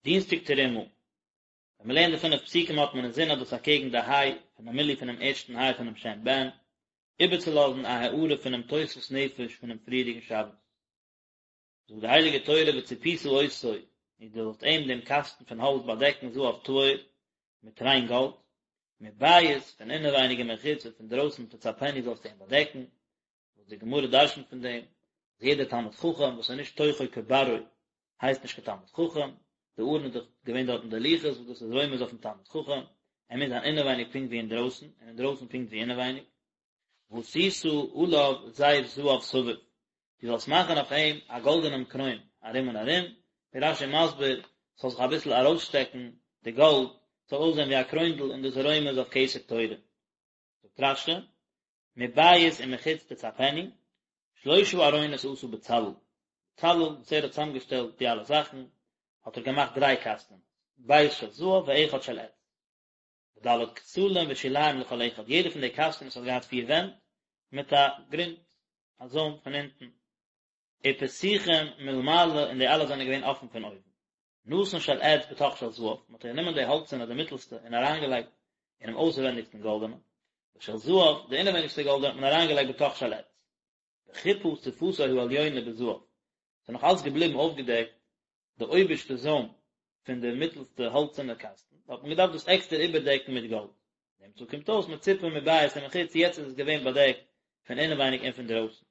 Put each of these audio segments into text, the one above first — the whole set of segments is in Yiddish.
דינסטאג תרומה. ווען מען לערנט די פינף פסוקים האט מען אינזין אז דאס אקעגן די היי פונעם מילוי פונעם ערשטן היי פונעם שם בן, איבערצולאזן א הארה פונעם תוספות נפש פונעם פריערדיגן שבת. זאגט די הייליגע תורה וצפית אותו, און דו זאלסט אים דעם קאסטן פון האלץ באדעקן זהב טהור, מיט ריין גאלד, מבית, פון אינעווייניג ומחוץ און פון דרויסן תצפנו זאלסטו אים באדעקן, וואס די גמרא דרשנ'ט פון דעם, אז יעדער תלמיד חכם וואס איז נישט תוכו כברו הייסט נישט קיין תלמיד חכם, די ארון איז דאך געווען דארטן די לוחות וואס דאס איז רומז אויפן תלמיד חכם, ער מוז זיין אינעווייניג פונקט ווי אינדרויסן, און אינדרויסן פונקט ווי אינעווייניג. ועשית עליו זר זהב סביב, דו זאלסט מאכן אויף אים א גאלדענעם קרוין ארום און ארום, ווי רש"י מסביר, ס'זאל זיך אביסל ארויסשטעקן די גאלד, ס'זאל אויסזען ווי א קרוינדל און דאס איז רומז אויף כתר תורה. זאגט רש"י, מבית ומחוץ תצפנו, שלושה ארונות עשה בצלאל, בצלאל וואס ער האט צוזאמגעשטעלט די אלע זאכן, האט ער געמאכט דריי קאסטענס, בית של זהב ואחד של עץ, וד' כתלים ושוליים לכל אחד, יעדע פון די קאסטענס האט געהאט פיר ווענט, מיט א גרונט, א זוים פון אונטן, ופתוחים מלמעלה און די אלע זענען געווען אפן פון אויבן. נתן של עץ בתוך של זהב, מען האט גענומען די האלצערנע די מיטלסטע און אריינגעלייגט אינעם אויסווענדיגסטן גאלדענעם, ושל זהב, די אינעווייניגסטע גאלדענע האט מען אריינגעלייגט בתוך של עץ. וחיפה שפתו העליונה בזהב, ס'איז נאך אלץ געבליבן אויפגעדעקט די אויבערשטע זוים פון די מיטלסטע האלצערנע קאסטן, האט מען געדארפט דאס עקסטער איבערדעקן מיט גאלד. נמצא קומט אויס מצופה מבית ומחוץ, יעצט איז עס געווען באדעקט פון אינעווייניג און פון דרויסן.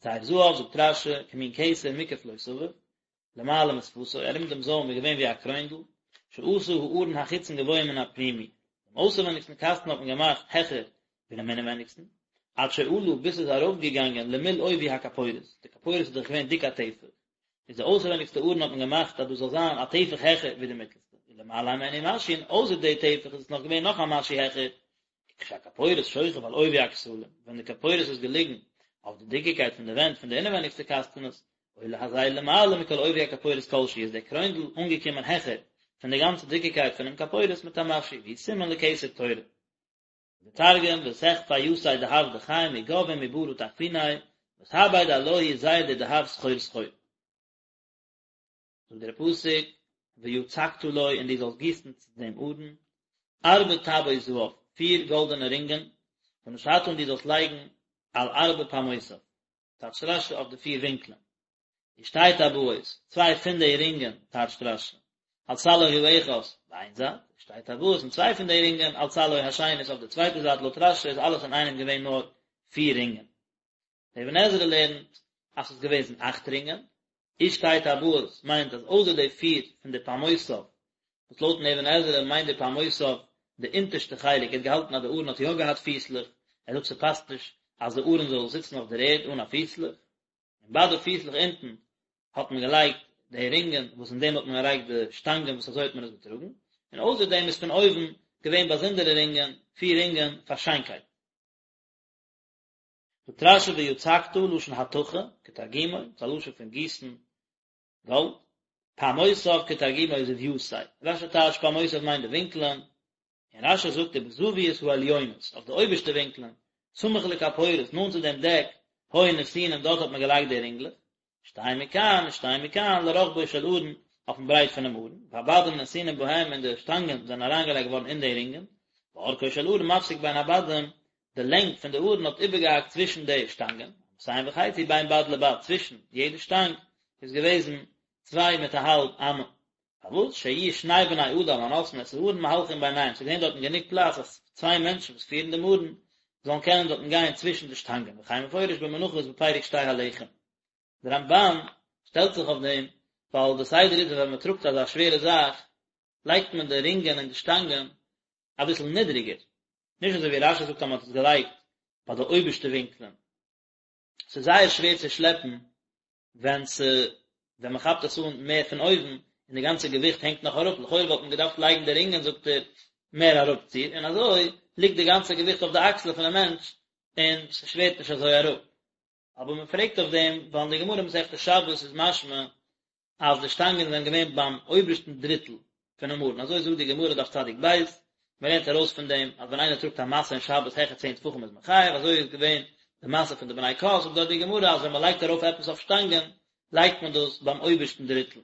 זר זהב, זאגט רש"י, כמין כתר מוקף לו סביב, למעלה משפתו, ארום דעם זוים איז געווען ווי א קרוינדל, שעשה הארון החיצון גבוה מן הפנימי, דעם אויסערווענדיגסטן קאסטן האט מען געמאכט העכער ווי דעם אינעווענדיגסטן, עד שעלה ביז ס'איז ארויפגעגאנגען למול עובי הכפורת, די כפורת איז דאך געווען דיק א טפח, איז די אויסערווענדיגסטע ארון האט מען געמאכט אז דאס זאל זיין א טפח העכער ווי די מיטלסטע, ולמעלה הימנו משהו, און אויסער די טפח איז עס נאך געווען נאך א משהו העכער, כשהכפורת שוכב על עובי הכתלים, ווען די כפורת איז געליגן אויף די דיקיקייט פון די ווענט פון די אינעווייניגסטע קאסטענעס, עולה הזר למעלה מכל עובי הכפורת כל שהוא, איז דער קרוינדל אנגעקומען העכער פון די גאנצע דיקיקייט פונעם כפורת מיט א משהו, והוא סימן לכתר תורה. די תרגום, ותחפי יתיה דהב דכי מגו ומברא תחפיניה, ותעביד עלוהי זר דדהב סחור סחור. זאגט דער פסוק, ויצקת לו און דו זאלסט גיסן צו דעם ארון, ארבע טבעות זהב, פיר גאלדענע רינגען, ונתתה און דו זאלסט לייגן על ארבע פעמותיו, טייטשט רש"י אויף די פיר ווינקלען, ושתי טבעות, צוויי פון די רינגען, טייטשט רש"י, על צלעו האחת, ביי איין זייט, ושתי טבעות און צוויי פון די רינגען, על צלעו השנית אויף די צווייטע זייט, לויט רש"י איז אלעס אינאיינעם געווען נאר פיר רינגען. דער אבן עזרא לערנט אז ס'איז געוועזן אכט רינגען, ושתי טבעות מיינט אז אויסער די פיר פון די פעמותיו, וואס לויטן אבן עזרא מיינט די פעמותיו די אונטערשטע חלק, ער האט געהאלטן אז די ארון האט יא געהאט פיסלעך, ער זאגט ס'פאסט נישט אז די ארון זאל זיצן אויף דער ערד אן א פיסלעך, און ביי די פיסלעך אונטן האט מען געלייגט די רינגען וואס אין דעם האט מען געלייגט די שטאנגען וואס אזוי האט מען עס געטראגן, און אויסער דעם איז פון אויבן געווען באזונדערע רינגען, פיר רינגען פאר שיינקייט. זאגט רש"י ויצקת לשון התכה כתרגומו, ס'איז א לשון פון גיסן גאלד, פעמותיו כתרגומו זויתיה, רש"י טייטשט פעמותיו מיינט די ווינקלען, און רש"י זאגט ובזוויות העליונות, אויף די אויבערשטע ווינקלען, סמוך לכפורת, נאנט צו דעם דעק, היו נתונים דארט האט מען געלייגט די רינגלעך, שתיים מכאן ושתיים מכאן לרוחבו של ארון, אויפן ברייט פונעם ארון, והבדים נתונים בהם און די שטאנגען זענען אריינגעלייגט געווארן אין די רינגען, ואורכו של ארון מפסיק בין הבדים, די לענג פון די ארון האט איבערגעהאקט צווישן די שטאנגען, אמתים וחצי בין בד לבד, צווישן יעדע שטאנג איז געוועזן צוויי מיט א האלב אמה, פארוואס שיהיו שני בני אדם הנושאים את הארון מהלכים ביניהם, ס'איז געווען דארטן גענוג פלאץ אז צוויי מענטשן וואס פירן דעם ארון זאלן קענען דארטן גיין צווישן די שטאנגען, וכן מפורש במנחות בפרק שתי הלחם. דער רמב"ן שטעלט זיך אויף דעם, ווייל די סדר איז אז ווען מען טראגט אזא שווערע זאך, לייגט מען די רינגען און די שטאנגען אביסל נידריגער, נישט אזוי ווי רש"י זאגט אז מען האט עס געלייגט ביי די אויבערשטע ווינקלען. ס'איז זייער שווער צו שלעפן ווען ס' ווען מען כאפט עס אן מער פון אויבן און די גאנצע געוויכט הענגט נאך אראפ, לכאורה וואלט מען געדארפט לייגן די רינגען זאגט ער מער אראפציר און אזוי ליגט די גאנצע געוויכט אויף די אקסלען פונעם מענטש און ס'שווערט נישט אזוי אראפ. אבער מען פרעגט אויף דעם ווייל אין די גמרא מסכת שבת איז משמע אז די שטאנגען זענען געווען ביים אויבערשטן דריטל פונעם ארון, אזוי זאגט די גמרא דף צדיק ב', מען לערנט ארויס פון דעם אז ווען איינער טראגט א משא אין שבת העכער צען טפחים איז מען חייב, אזוי איז געווען די משא פון די בני קהת, זאגט דארט די גמרא אז ווען מען לייגט ארויף עפעס אויף שטאנגען לייגט מען דאס ביים אויבערשטן דריטל.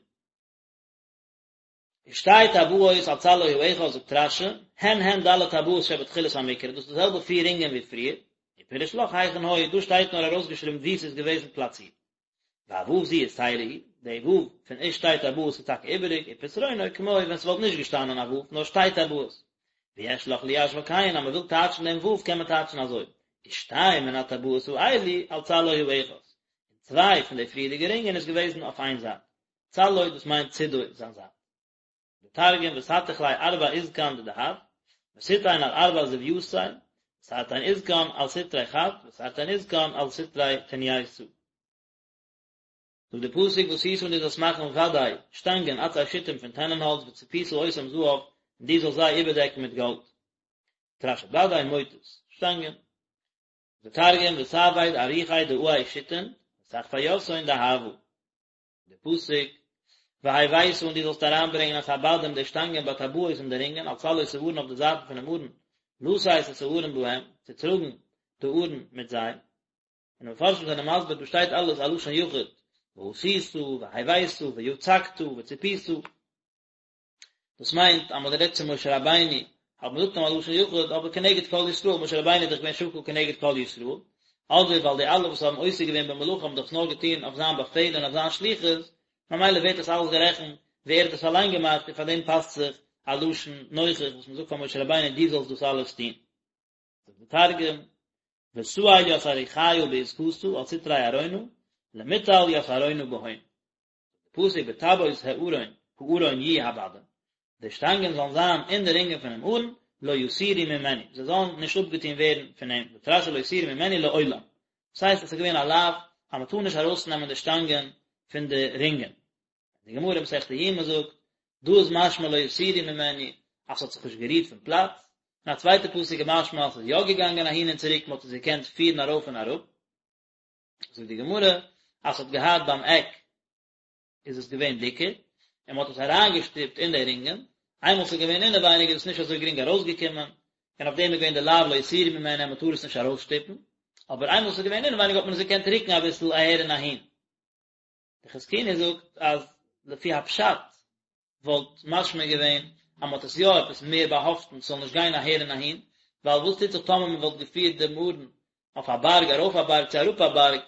ושתי טבעות על צלעו האחד זאגט רש"י, הן הן ד' טבעות שבתחילת המקרא, דאס איז די זעלבע פיר רינגען ווי פריער, ופירש לך היכן היו, דא שטייט נאר ארויסגעשריבן וואו ס'איז געוועזן פלאצירט. והו' זו יתירה היא, די ו' פון ושתי טבעות איז טאקע איבעריג, ופתרונו כמו ווען ס'וואלט נישט געשטאנען א ו' נאר שתי טבעות. ויש לך ליישבה כן, אז מ'וויל טייטשן דעם ו' קען מען טייטשן אזוי, ושתיים מן הטבעות האלו על צלעו האחד, און צוויי פון די פריערדיגע רינגען איז געוועזן אויף איין זייט. צלעו דאס מיינט צידו זיין זייט. די תרגום ותתיך ליה ארבע עזקן דדהב, ותיתין על ארבע זויתיה, ותרתין עזקן על סטרי חד, ותרתין עזקן על סטרי תנייתא. זאגט די פסוק ועשית און דו זאלסט מאכן בדי שטאנגען עצי שיטים פון טענענהאלץ וצפית אותם זהב און דו זאלסט זיי איבערדעקן מיט גאלד. זאגט רש"י בדי מוטות, שטאנגען. די תרגום ותעביד אריחי דעי שיטין, ותחפיתהון דהבא. די פסוק, והבאת און דו זאלסט אריינברענגען את הבדים די שטאנגען בטבעות אין די רינגען על צלעות הארון אויף די זייטן פונעם ארון, לשאת את הארון בהם, צו טראגן די ארון מיט זיי. און די מפרשים זענען מסביר דא שטייט אלעס א לשון יחיד, ועשית, והבאת, ויצקת, וצפית. דאס מיינט אז מען האט גערעדט צו משה רבינו, האט מען געזאגט אים א לשון יחיד, אבער כנגד כל ישראל, משה רבינו איז דאך געווען שקול כנגד כל ישראל, אדער ווייל די אלע וואס האבן עוסק געווען במלאכה האבן דאך עס נאר געטון אויף זיין באפעל און אויף זיין שליחות, ממילא ווערט עס אלעס גערעכנט ווי ער האט עס אליין געמאכט און פאר דעם פאסט זיך א לשון נוכח וואס מען זאגט פאר משה רבינו דו זאלסט דאס אלעס טון. זאגט די תרגום, ותעיל ית אריחיא בעזקתא על סטרי ארונא, למטל ית ארונא בהון. פסוק בטבעות הארון הארון יהיו הבדים, די שטאנגען זאלן זיין אין די רינגען פונעם ארון, לא יסורו ממנו, זיי זאלן נישט אפגעטון ווערן פון אים, זאגט רש"י לא יסורו ממנו לעולם, דאס הייסט עס איז געווען א לאו אז מען טאר נישט ארויסנעמען די שטאנגען פון די רינגען. די גמרא מסכת יומא זאגט, דא איז משמע לא יסורו ממנו אז ס'האט זיך נישט גערירט פון פלאץ, און א צווייטע פסוק איז משמע אז ס'איז יא געגאנגען אהין און צוריק, מען האט עס געקענט פירן ארויף און אראפ. זאגט די גמרא אז ס'האט געהאט ביים עק איז עס געווען דיקער, און מ'האט עס אריינגעשטופט אין די רינגען, איינמאל ס'איז געווען אינעווייניג איז עס נישט אזוי גרינג ארויסגעקומען, און אויף דעם איז געווען די לאו לא יסורו ממנו אז מ'טאר עס נישט ארויסשטופן, אבער איינמאל ס'איז געווען אינעווייניג האט מען עס געקענט רוקן אביסל אהער און אהין. די חזקוני זאגט אז לפי הפשט וואלט משמע געווען אז מען האט עס יא עפעס מער באהאפטן ס'זאל נישט גיין אהער און אהין, ווייל וואס טוט זיך טאמער מען וואלט געפירט דעם ארון אויף א בארג ארויף א בארג צו אראפ א בארג,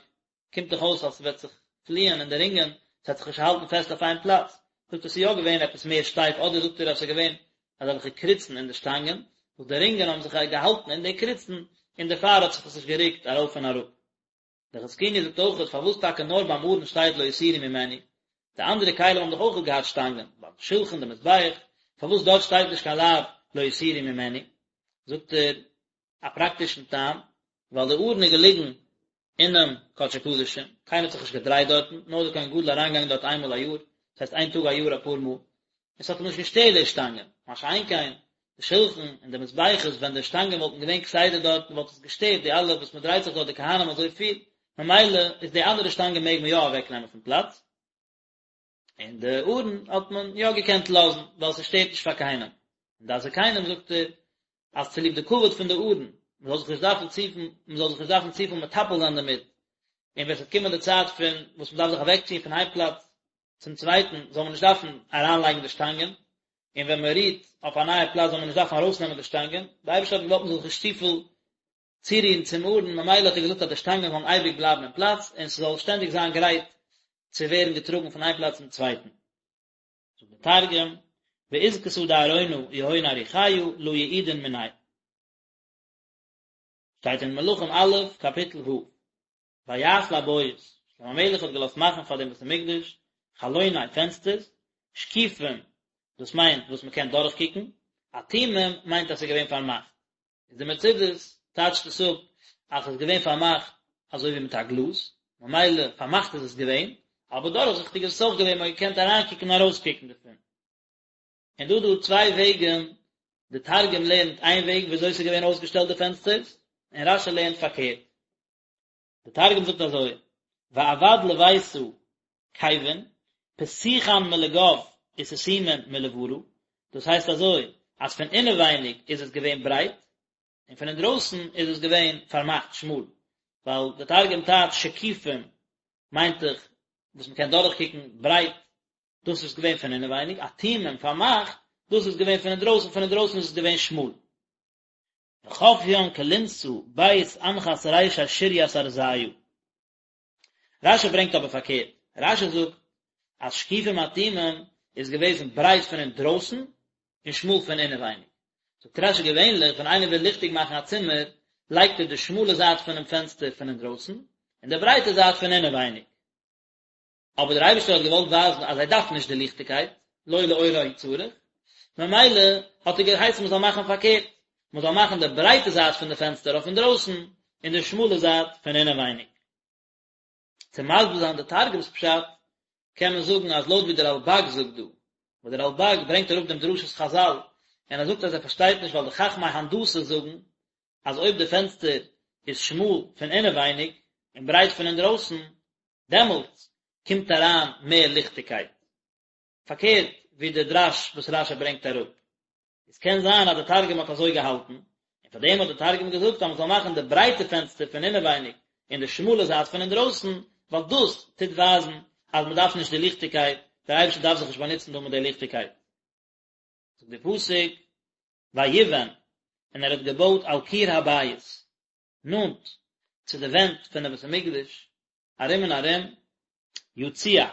קומט דאך אויס אז ס'וועט זיך פליען אין די רינגען, ס'וועט זיך נישט האלטן פעסט אויף איין פלאץ, זאגט ער ס'איז יא געווען עפעס מער שטייף אדער זאגט ער אז ס'איז געווען אזעלכע קריצן אין די שטאנגען וואס די רינגען האבן זיך געהאלטן אין די קריצן און דערפאר האט זיך עס נישט גערוקט ארויף און אראפ. דער חזקוני זאגט אויכעט פארוואס טאקע נאר ביים ארון שטייט לא יסורו ממנו, די אנדערע כלים האבן דאך אויכעט געהאט שטאנגען, ביים שלחן די מזבח, פארוואס דארט שטייט נישט קיין לאו לא יסורו ממנו, זאגט ער א פראקטישן טעם, ווייל די ארון איז געליגן אינעם קדשי קדשים, קיינער האט זיך נישט געדרייט דארטן, נאר דער כהן גדול אריינגעגאנגען דארט איינמאל א יאר, דאס הייסט איין טאג א יאר אפאר מאל, און ס'האט אים נישט געשטערט די שטאנגען, מה שאין כן די שלחן און די מזבחות ווען די שטאנגען וואלטן געווען כסדר דארטן וואלט עס געשטערט די אלע וואס מען דרייט זיך דארט די כהנים אזוי פיל, ממילא איז די אנדערע שטאנגען מעג מען יא אוועק נעמען פון פלאץ, און די ארון האט מען יא געקענט לאזן ווייל ס'שטערט נישט פאר קיינעם, און דעת זקנים זאגט ער אז צוליב די כבוד פון די ארון, מען זאל זיך נישט דארפן צופיל, מען זאל זיך נישט דארפן צופיל מטפל זיין דערמיט, און ווען ס'וועט קומען די צייט פון וואס מען דארף זיך אוועקציען פון איין פלאץ צום צווייטן זאל מען נישט דארפן אריינלייגן די שטאנגען, און ווען מען רוהט אויף א נייע פלאץ זאל מען נישט דארפן ארויסנעמען די שטאנגען, די אייבערשטער האט געוואלט מען זאל זיך נישט צופיל צורירן צום ארון, ממילא האט ער געזאגט אז די שטאנגען זאלן אייביג בלייבן אין פלאץ, און ס'זאל שטענדיג זיין גרייט צו ווערן געטראגן פון איין פלאץ צום צווייטן. זאגט דער תרגום, בעזקתא דארונא יהון אריחיא לא יעידון מניה. שטייט אין מלכים א', קאפיטל ו'. ויעש לבית, שלמה המלך האט געלאזט מאכן פאר דעם בית המקדש, חלוני פענסטערס, שקיפים, דאס מיינט וואס מען קען דורכקוקן, אטומים מיינט אז ס'איז געווען פארמאכט. איז די מצודות טייטשט עס אפ אז ס'איז געווען פארמאכט אזוי ווי מיט א גלאז, ממילא פארמאכט איז עס געווען, אבער דורכזיכטיג איז עס אויך געווען, מען האט געקענט אריינקוקן און ארויסקוקן דערפון. און דא דא צוויי וועגן, די תרגום לערנט איין וועג ווי אזוי ס'איז געווען אויסגעשטעלט די פענסטערס, און רש"י לערנט פארקערט. די תרגום זאגט אזוי, ועבד לביתא כיבין, פתיחן מלגו וסתימין מלברא, דאס הייסט אזוי, אז פון אינעווייניג איז עס געווען ברייט, און פון אינדרויסן איז עס געווען פארמאכט שמאל, ווייל די תרגום טייטש שקיפים מיינט דאך וואס מען קען דורכקוקן ברייט. דאס איז געווען פון אינעווייניג, אטומים פארמאכט, דאס איז געווען פון אינדרויסן, פון אינדרויסן איז עס געווען שמאל. וחפין כלונסא בית אנחת רישי שריית ארזיא. רשי ברענגט אבער פארקערט, רשי זאגט אז שקיפים אטומים איז געוועזן ברייט פון אינדרויסן און שמאל פון אינעווייניג. זאגט רשי געווענליך ווען איינער וויל ליכטיג מאכן א צימער לייגט ער די שמאלע זייט פונעם פענסטער פון אינדרויסן און די ברייטע זייט פון אינעווייניג. אבער דער אייבערשטער האט געוואלט ווייזן אז זיי דארפן נישט די ליכטיגקייט, לא לאורה הוא צריך, ממילא האט ער געהייסן מען זאל מאכן פארקערט, מען זאל מאכן די ברייטע זייט פון די פענסטער אויף אינדרויסן און די שמאלע זייט פון אינעווייניג. צו מסביר זיין די תרגום'ס פשט, קען מען זאגן אז לויט ווי דער רלבג זאגט דא, וואס דער רלבג ברענגט אראפ דעם דרשת חזל, און ער זאגט אז ער פארשטייט נישט ווייל די חכמי הנדסה זאגן אז אויב די פענסטער איז שמאל פון אינעווייניג און ברייט פון אינדרויסן, דעמאלטס קומט אריין מער ליכטיגקייט. פארקערט ווי די דרש וואס רשי ברענגט אראפ. עס קען זיין אז די תרגום האט אזוי געהאלטן, און פאר דעם האט די תרגום געזאגט אז מען זאל מאכן די ברייטע פענסטער פון אינעווייניג און די שמאלע זייט פון אינדרויסן, ווייל דאס טוט ווייזן אז מען דארף נישט די ליכטיגקייט, דער אייבערשטער דארף זיך נישט באנוצן דא מיט די ליכטיגקייט. זאגט די פסוק, ויבן, און ער האט געבויט על קיר הבית, נאנט צו די ווענט פונעם בית המקדש, ארום און ארום, יציע,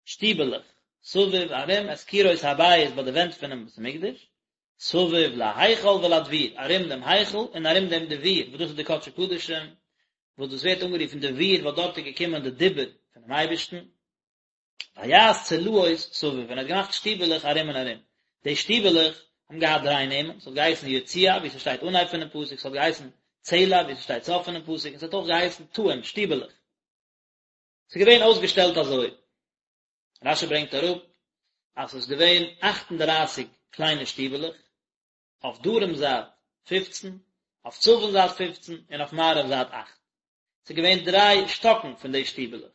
שטיבעלעך, סביב, ארום, את קירות הבית ביי די ווענט פונעם בית המקדש, סביב להיכל ולדביר, ארום דעם היכל און ארום דעם דביר, וואס דאס איז די קדשי קדשים, וואס דאס ווערט אנגערופן דביר ווייל דארט איז געקומען די דיבור פונעם אייבערשטן. ויעש צלעות סביב, און ער האט געמאכט שטיבעלעך ארום און ארום. די שטיבעלעך האבן געהאט דריי נעמען, ס'האט געהייסן יציע, ווי ס'שטייט אנהייב פונעם פסוק, ס'האט געהייסן צלע, ווי ס'שטייט סוף פונעם פסוק, און ס'האט אויך געהייסן תאים, שטיבעלעך. ס'איז געווען אויסגעשטעלט אזוי. רשי ברענגט אראפ אז ס'איז געווען אכט און דרייסיג קליינע שטיבעלעך, אויף דרום זייט פופצן, אויף צפון זייט פופצן, און אויף מערב זייט אכט. ס'איז געווען דריי שטאקן פון די שטיבעלעך.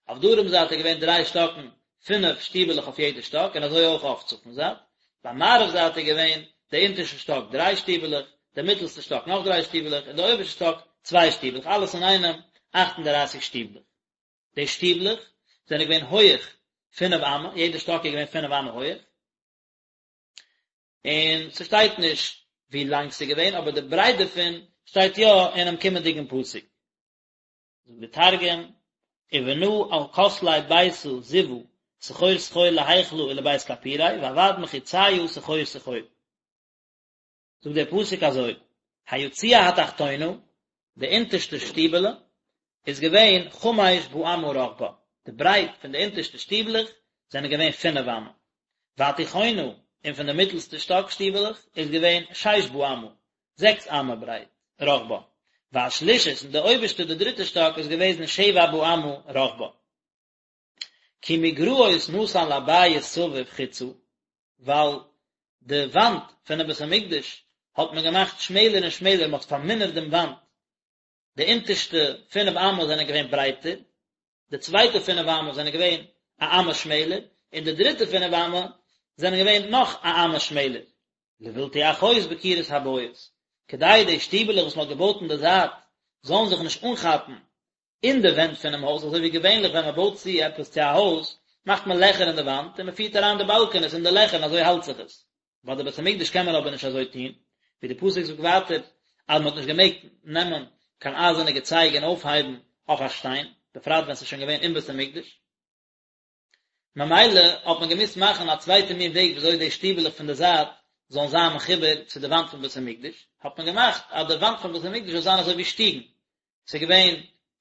אויף דרום זייט איז געווען דריי שטאקן, פינף שטיבעלעך אויף יעדע שטאק, און אזוי אויך אויף צפון זייט. ביי מערב זייט איז געווען די אונטערשטע שטאק דריי שטיבעלעך, די מיטלסטע שטאק נאך דריי שטיבעלעך, און די אויבערשטע שטאק צוויי שטיבעלעך, אלעס אינאיינעם אכט און דרייסיג שטיבלעך. די שטיבלעך זענען געווען הויעך פינף אמה, יעדע שטאק איז געווען פינף אמה הויעך. און ס'שטייט נישט ווי לאנג ס'איז געווען, אבער די ברייט דערפון שטייט יא אינעם קומענדיגן פסוק. זאגט די תרגום, ובנא על כתלי ביתא זיוא סחור סחור להיכלא ולבית כפוריה ועבד מחיציא סחור סחור. זאגט דער פסוק אזוי, היציע התחתונה, די אונטערשטע שטיבעלע, איז געווען חמש באמה רחבה, די ברייט פון די אונטערשטע שטיבלעך זענען געווען פינף אמה, והתיכונה, און פון די מיטלסטע שטאק שטיבעלעך איז געווען שש באמה, זעקס אמה ברייט, רחבה, והשלישית, און די אויבערשטע די דריטע שטאק איז געוועזן שבע באמה רחבה. כי מגרעות נתן לבית סביב חוצה, ווייל די וואנט פונעם בית המקדש האט מען געמאכט שמעלער און שמעלער, מען האט פארמינערט דעם וואנט, די אונטערשטע פינף אמות זענען געווען ברייטער, די צווייטע פינף אמות זענען געווען א אמה שמעלער, און די דריטע פינף אמה זענען געווען נאך א אמה שמעלער. לבלתי אחוז בקירות הבית, כדי די שטיבעלעך וואס מען האט געבויט אין די זייט זאלן זיך נישט אנכאפן אין די ווענט פונעם הויז, אזוי ווי געווענליך ווען מען בויט צו עפעס צו א הויז, מאכט מען לעכער אין די וואנט און מען פירט אריין די באלקענעס אין די לעכער און אזוי האלט זיך עס. ביי די בית המקדש קען מען אבער נישט אזוי טון, ווי די פסוק זאגט ווייטער אז מען האט נישט געמעגט נעמען קיין אייזערנע געצייג און אויפהייבן אויף א שטיין, בפרט ווען ס'איז שוין געווען אין בית המקדש. ממילא האט מען געמוזט מאכן א צווייטע מין וועג וויאזוי די שטיבעלעך פון די זייט זאלן זיין מחובר צו די וואנט פון בית המקדש, האט מען געמאכט אז די וואנט פון בית המקדש זאל זיין אזוי ווי שטיגן, ס'איז געווען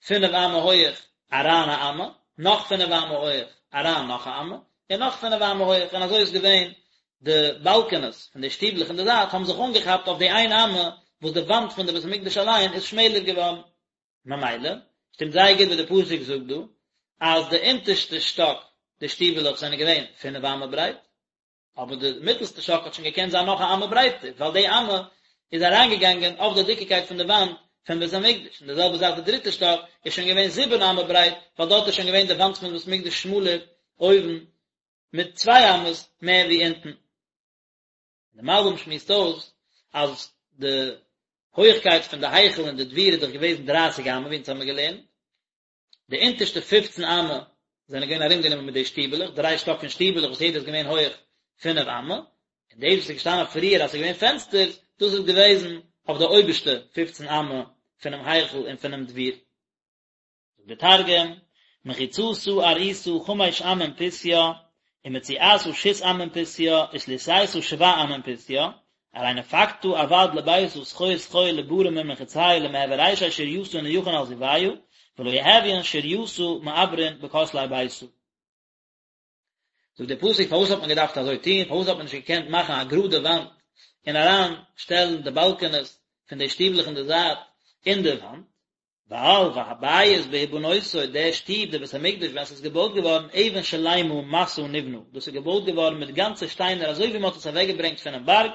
פינף אמה הויעך אריין א אמה, נאך פינף אמה הויעך אריין נאך א אמה, און נאך פינף אמה הויעך, און אזוי איז געווען די באלקענעס פון די שטיבלעך אין די זייט האבן זיך אנגעכאפט אויף די איין אמה וואס די וואנט פון די בית המקדש אליין איז שמעלער געווארן. ממילא, שטימט זייער גוט וואס די פסוק זאגט דא, אז די אונטערשטע שטאק, די שטיבעלעך זענען געווען פינף אמה ברייט, אבער די מיטלסטע שטאק האט שוין געקענט זיין נאך א אמה ברייטער, ווייל די אמה איז אריינגעגאנגען אויף די דיקיקייט פון די וואנט פון בית המקדש, און די זעלבע זאך די דריטע שטאק איז שוין געווען זיבן אמה ברייט, ווייל דארט איז שוין געווען די וואנט פון בית המקדש שמאלער אויבן מיט צוויי אמות מער ווי אונטן. די מלבים שמועסט אויס אז די הויכקייט פון די היכל און די דביר איז דאך געוועזן דרייסיג אמה ווי אונז האמיר געלערנט, די אונטערשטע פופצן אמה. זענען געווען ארומגענומען מיט די שטיבעלעך, דריי שטאק פון שטיבעלעך וואס יעדער איז געווען הויעך פינף אמה, און דאס וואס איז געשטאנען פריער אז ס'איז געווען פענסטערס, דאס איז געוועזן אויף די אויבערשטע פופצן אמה פונעם היכל און פונעם דביר. זאגט דער תרגום, מחיצתא ארעיתא חמש אמין פותיא, ומציעתא שית אמין פותיא, ותליתיתא שבע אמין פותיא, ארי נפקתא עבד לביתא סחור סחור לברא מן מחיציא למהוי רישי שורייתא נייחין על זיויא, ולא יהויין שורייתא מעברין בכותלי ביתא. זאגט דער פסוק פארוואס האט מען געדארפט אזוי טון, פארוואס האט מען נישט געקענט מאכן א גראדע וואנט און אריין שטעלן די באלקענעס פון די שטיבלעך אין די זייט אין די וואנט, ווייל והבית בהבנותו, דער שטוב, דער בית המקדש ווען ס'איז געבויט געווארן אבן שלימה מסע נבנה, דאס איז געבויט געווארן מיט גאנצע שטיינער אזוי ווי מען האט עס אוועקגעברענגט פונעם בארג,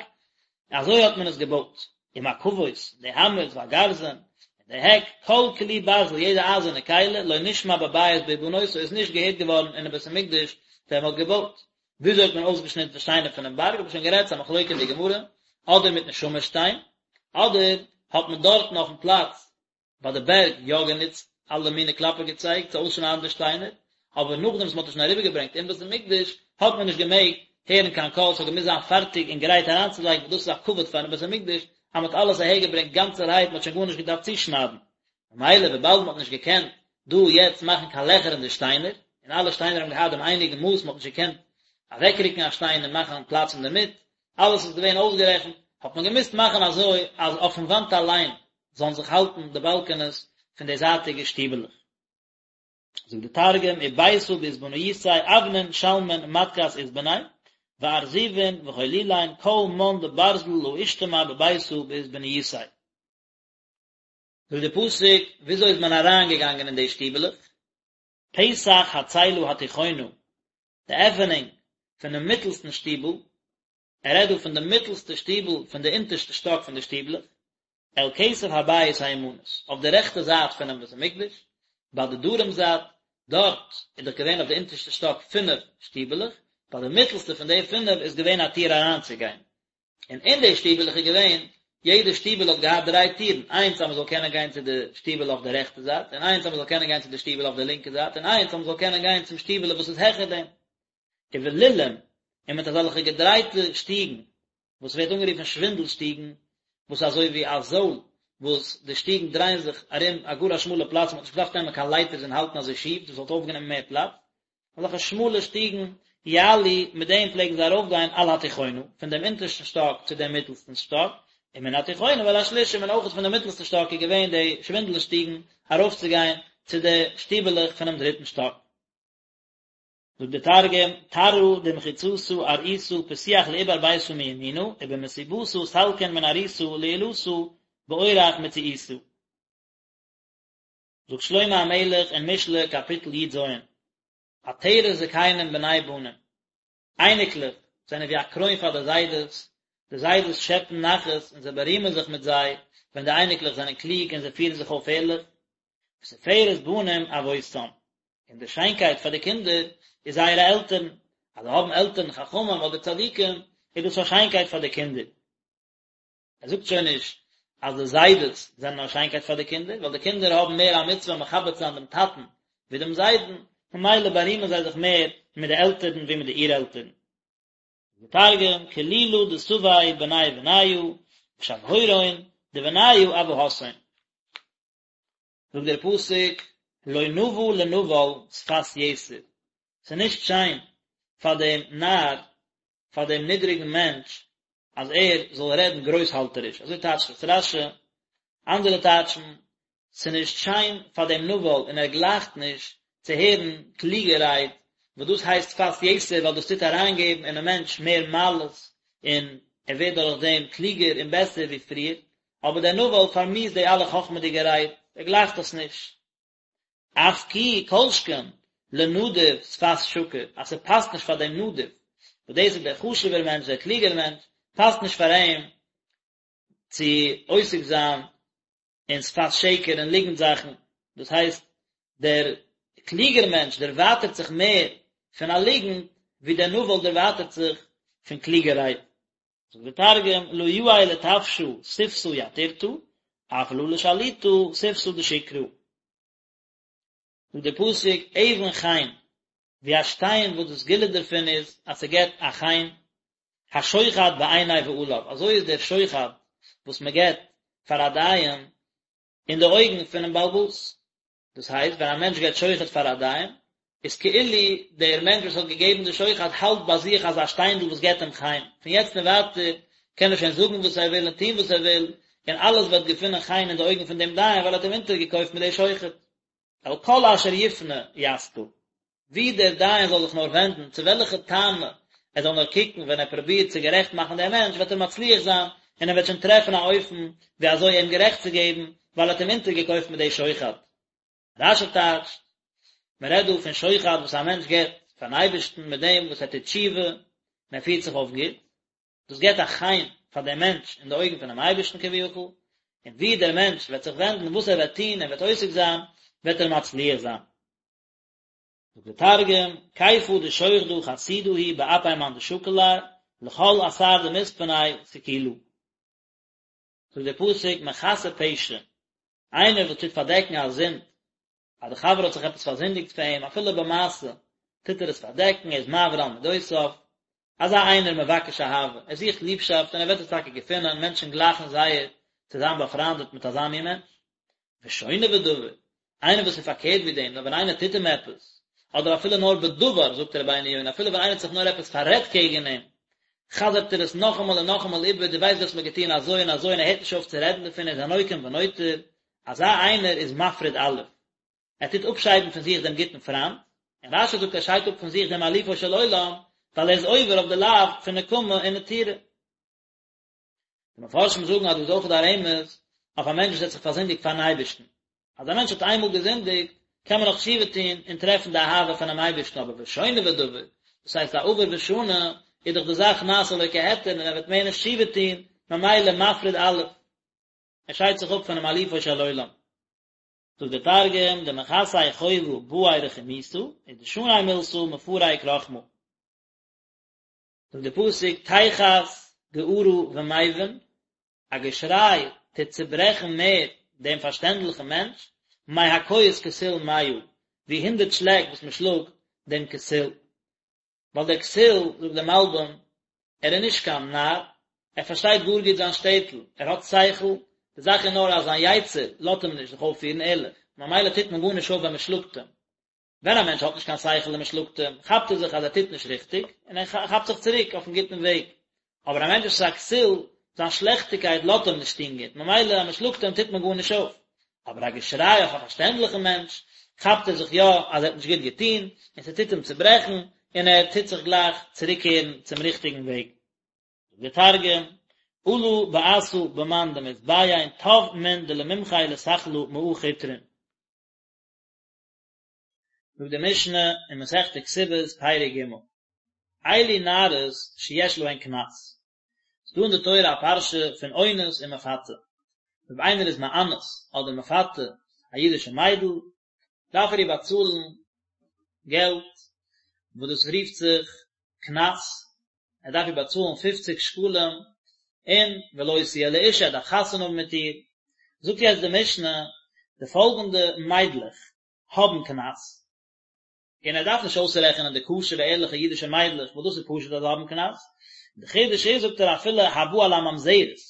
אזוי האט מען עס געבויט, ומקבות, די האמערס והגרזן, און די העק, כל כלי ברזל, יעדע אייזערנע כלי, לא נשמע בבית בהבנותו, איז נישט געהערט געווארן אינעם בית המקדש ווען מען האט געבויט. וויאזוי האט מען אויסגעשניטן די שטיינער פונעם בארג, האב איך שוין גערעדט, ס'איז א מחלוקה אין די גמרא, אדער מיטן שמיר שטיין, אדער האט מען דארטן אויפן פלאץ ביי די בערג יא גענוצט אלע מיני קלאפער געצייג צו אויסשניידן די שטיינער, אבער נאכדעם וואס מען האט עס שוין אריבערגעברענגט אין בית המקדש האט מען נישט געמעגט הערן קיין קול, ס'האט געמוזט זיין פארטיג און גרייט אריינצולייגן, ווייל דאס איז א כבוד פארן בית המקדש אז מען האט אלעס אהערגעברענגט גאנצערהייט, מען האט שוין גארנישט געדארפט צושניידן. ממילא וויבאלד מען האט נישט געקענט דא יעצט מאכן קיין לעכער אין די שטיינער, און אלע שטיינער האבן געהאט דעם אייניגן מאס, מען האט נישט געקענט אוועקרוקן א שטיין און מאכן פלאץ אינדערמיט, אלעס איז געווען אויסגערעכנט, האט מען געמוזט מאכן אזוי אז אויפן וואנט אליין זאלן זיך האלטן די באלקענעס פון די זייטיגע שטיבעלעך. זאגט די תרגום, וביתא באתבניתיה אבנין שלמין מתכת אתבני, וארזיבין וחלולין כל מן דברזל לא אשתמע בביתא באתבניתיה. זאגט די פסוק, וויאזוי איז מען אריינגעגאנגען אין די שטיבעלעך? פתח הצלע התיכונה, די עפענונג פונעם מיטלסטן שטיבל, ער רעדט דא פון די מיטלסטע שטיבל פון די אונטערשטע שטאק פון די שטיבלעך, אל כתף הבית הימנית, אויף די רעכטע זייט פונעם בית המקדש, ביי די דרום זייט, דארט איז דאך געווען אויף די אונטערשטע שטאק פינף שטיבעלעך, ביי די מיטלסטע פון די פינף איז געווען א טיר אריינצוגיין, און אין די שטיבעלעך איז געווען, יעדע שטיבעל האט געהאט דריי טירן, איינס אז מען זאל קענען גיין צו די שטיבעלע אויף די רעכטע זייט, און איינס אז מען זאל קענען גיין צו די שטיבעלע אויף די לינקע זייט, און איינס אז מען זאל קענען גיין צום שטיבעלע וואס איז העכער דעם. ובלולים, און מיט אזעלכע געדרייטע שטיגן, וואס ווערט אנגערופן שווינדל שטיגן, וואס איז אזוי ווי א זויל, וואס די שטיגן דרייען זיך ארום א גאר א שמאלע פלאץ, מען האט נישט געדארפט נעמען קיין לייטערס און האלטן אזוי שיף, דאס וואלט אויפגענומען מער פלאץ, אזעלכע שמאלע שטיגן, יעלו, מיט דעם פלעגן זיי ארויפגיין על התיכונה, פון דעם אונטערשטן שטאק צו דעם מיטלסטן שטאק, ומן התיכונה אל השלישית, און אויך פון דעם מיטלסטן שטאק איז געווען די שווינדל שטיגן ארויפצוגיין צו די שטיבעלעך פונעם דריטן שטאק. זאגט דער תרגום, תרעא דמחיצתא ארעיתא פתיח לעיבר ביתא מימינא, ובמסיבתא סלקין מן ארעיתא לעילתא באורח מציעיתא. זאגט שלמה המלך אין משלי קאפיטל י ז, עטרת זקנים בני בנים, אייניקלעך זענען ווי א קרוין פאר די זיידעס, די זיידעס שעפן נחת און זיי בארימען זיך מיט זיי ווען די אייניקלעך זענען קלוג און זיי פירן זיך אויף ערליך, ותפארת בנים אבותם, און די שיינקייט פאר די קינדער איז זייערע עלטערן, אז זיי האבן עלטערן חכמים אדער צדיקים איז דאס א שיינקייט פאר די קינדער. ער זאגט שוין נישט אז די זיידעס זענען א שיינקייט פאר די קינדער, ווייל די קינדער האבן מער א מצוה מכבד צו זיין דעם טאטן ווי דעם זיידן, ממילא בארימען זיי זיך מער מיט די עלטערן ווי מיט די אור-עלטערן. דער תרגום, כלילא דסבי בני בניא, ושבהורון דבניא אבהתהון. זאגט דער פסוק, לא נאוה לנבל שפת יתר, ס'איז נישט שיין פאר דעם נאר, פאר דעם נידריגן מענטש, אז ער זאל רעדן גרויסהאלטעריש, אזוי טייטשט עס רש"י, אנדערע טייטשן, ס'איז נישט שיין פאר דעם נבל און ער גלייכט נישט צו הערן קלוגע רייד, וואס דאס הייסט שפת יתר ווייל דאס טוט אריינגעבן אינעם מענטש מער מעלות און ער ווערט דורך דעם קלוגער און בעסער ווי פריער, אבער דער נבל פארמיאוסט די אלע חכמה'דיגע רייד, ער גלייכט עס נישט. אף כי כל שכן לנדיב שפת שקר, אז ס'פאסט נישט פאר דעם נדיב, וואס דאס איז דער חשוב'ער מענטש, דער קלוגער מענטש, פאסט נישט פאר אים צו עוסק זיין אין שפת שקר און ליגנט זאכן, דאס הייסט, דער קלוגער מענטש דערווייטערט זיך מער פון א ליגנט, ווי דער נבל דערווייטערט זיך פון קלוגע רייד. זאגט דער תרגום, לא יאה לטפשא שפתא יתירתא, אף לא לשליטא שפתא דשקרא. זאגט דער פסוק, אבן חן. ווי א שטיין וואס די סגולה דערפון איז אז ס'געבט א חן, השוחד בעיני בעליו, אזוי איז דער שוחד וואס מ'געבט פאר א דיין אין די אויגן פונעם בעל הבית. דאס הייסט ווען א מענטש געבט שוחד פאר א דיין, איז כאילו דער מענטש וואס האט געגעבן די שוחד האלט ביי זיך אזא שטיינדל וואס געבט אים חן, פון יעצט און ווייטער קען ער שוין זאגן וואס ער וויל און טון וואס ער וויל, און אלעס וועט געפינען חן אין די אויגן פון דעם דיין ווייל ער האט אים אונטערגעקויפט מיט די שוחד. אל כל אשר יפנה ישכיל, ווי דער דיין זאל זיך נאר ווענדן, צו וועלכע טענה ער זאל נאר קוקן ווען ער פרובירט צו גערעכט מאכן דעם מענטש וועט ער מצליח זיין און ער וועט שוין טרעפן א אופן ווי אזוי אים גערעכט צו געבן ווייל ער האט אים אונטערגעקויפט מיט די שוחד. רש"י טייטשט, מען רעדט דא פון שוחד וואס א מענטש געבט פארן אייבערשטן מיט דעם וואס ער טוט תשובה און ער פירט זיך אויף גוט, דאס געבט א חן פאר דעם מענטש אין די אויגן פונעם אייבערשטן כביכול, און ווי דער מענטש וועט זיך ווענדן, וואס ער וועט טון און וועט עוסק זיין, וועט ער מצליח זיין. זאגט דער תרגום, כיפא דשוחדא חסידא הוא באפי מאן דשקיל ליה, לכל אתר דמתפני סקילא. זאגט דער פסוק, מכסה פשע, איינער וואס טוט פארדעקן א זינד, אז די חבר האט זיך עפעס פארזינדיגט פאר אים, אפילו במעשה, טוט ער עס פארדעקן, ער איז מעביר על מידותיו, אזא איינער מבקש אהבה, ער זוכט ליבשאפט און ער וועט עס טאקע געפינען, מענטשן גלייכן זייער צו זיין באפריינדעט מיט אזא מין מענטש. ושונה בדבר, איינער וואס איז פארקערט ווי דעם, נאר ווען איינער טוט אים עפעס, אדער אפילו נאר בדבר, זאגט רבינו יונה, אפילו ווען איינער האט זיך נאר עפעס פאררעדט קעגן אים, חזר'ט ער עס נאכאמאל און נאכאמאל איבער, דו ווייסט דו האסט מיר געטון אזוי און אזוי און ער הערט נישט אויף צו רעדן דערפון, ער איז א נוקם ונוטר, אזא איינער איז מפריד אלוף, ער טוט אפשיידן פון זיך דעם גוטן פריינד, און רש"י זאגט ער שיידט אפ פון זיך דעם אלופו של עולם, ווייל ער איז עובר אויף די לאו פון נקמה און נטירה. די מפרשים זאגן אז דא איז אויך דא א רמז אויף א מענטש וואס האט זיך פארזינדיגט פארן אייבערשטן, אז א מענטש האט איינמאל געזינדיגט, קען מען נאך תשובה טון און טרעפן די אהבה פונעם אייבערשטן, אבער ושונה בדבר, דאס הייסט א עובר ושנה, איז דאך די זאך נעשה לו כהיתר און ער וועט מער נישט תשובה טון, ממילא מפריד אלוף. ער שיידט זיך אפ פונעם אלופו של עולם. זאגט דער תרגום, דמכסי חובא בעי רחימותא, ודשני מילתא מפרק רחמא. זאגט דער פסוק, תחת גערה ומבין, א געשריי טוט צוברעכן מער דעם פארשטענדליכן מענטש, מהכות כסיל מאה, ווי הונדערט שלעק וואס מען שלאגט דעם כסיל. ווייל דער כסיל, זאגט דער מלבים, ער איז נישט קיין נאר, ער פארשטייט גאר גוט זיין שטעטל, ער האט שכל, די זאך איז נאר אז זיין יצר לאזט אים נישט זיך אויפפירן ערליך, ממילא טוט מען גארנישט אויף ווען מען שלאגט אים. ווען א מענטש האט נישט קיין שכל און מען שלאגט אים, כאפט ער זיך אז ער טוט נישט ריכטיג, און ער כאפט זיך צוריק אויפן גוטן וועג. אבער א מענטש וואס איז א כסיל, זיין שלעכטיגקייט לאזט אים נישט טון גוט, ממילא אז מען שלאגט אים טוט מען גארנישט אויף. אבער א געשריי אויף א פארשטענדליכן מענטש, כאפט ער זיך יא אז ער האט נישט גוט געטון, און ס'טוט אים צוברעכן, און ער טוט זיך גלייך צוריקקערן צום ריכטיגן וועג. זאגט דער תרגום, עלא בעתא במאן דמתביין טב מן דלממחי לסכלא מאה חוטרין. זאגט די משנה אין מסכת כתובות פרק ג', אלו נערות שיש להן קנס, ס'דא אין די תורה א פרשה פון אונס און מפתה, אויב איינער איז מאנס אדער מפתה א אידישע מיידל, דארף ער איר באצאלן געלט, וואס דאס רופט זיך קנס, ער דארף איר באצאלן פופציג שקלים, און ולו תהיה לאשה, ער דארף חתונה האבן מיט איר. זאגט יעצט די משנה, די פאלגענדע מיידלעך האבן קנס, און ער דארף נישט אויסרעכענען די כשר'ע ערליכע אידישע מיידלעך וואס דאס איז פשוט אז זיי האבן קנס, די חידוש איז זאגט ער אפילו הבא על הממזרת,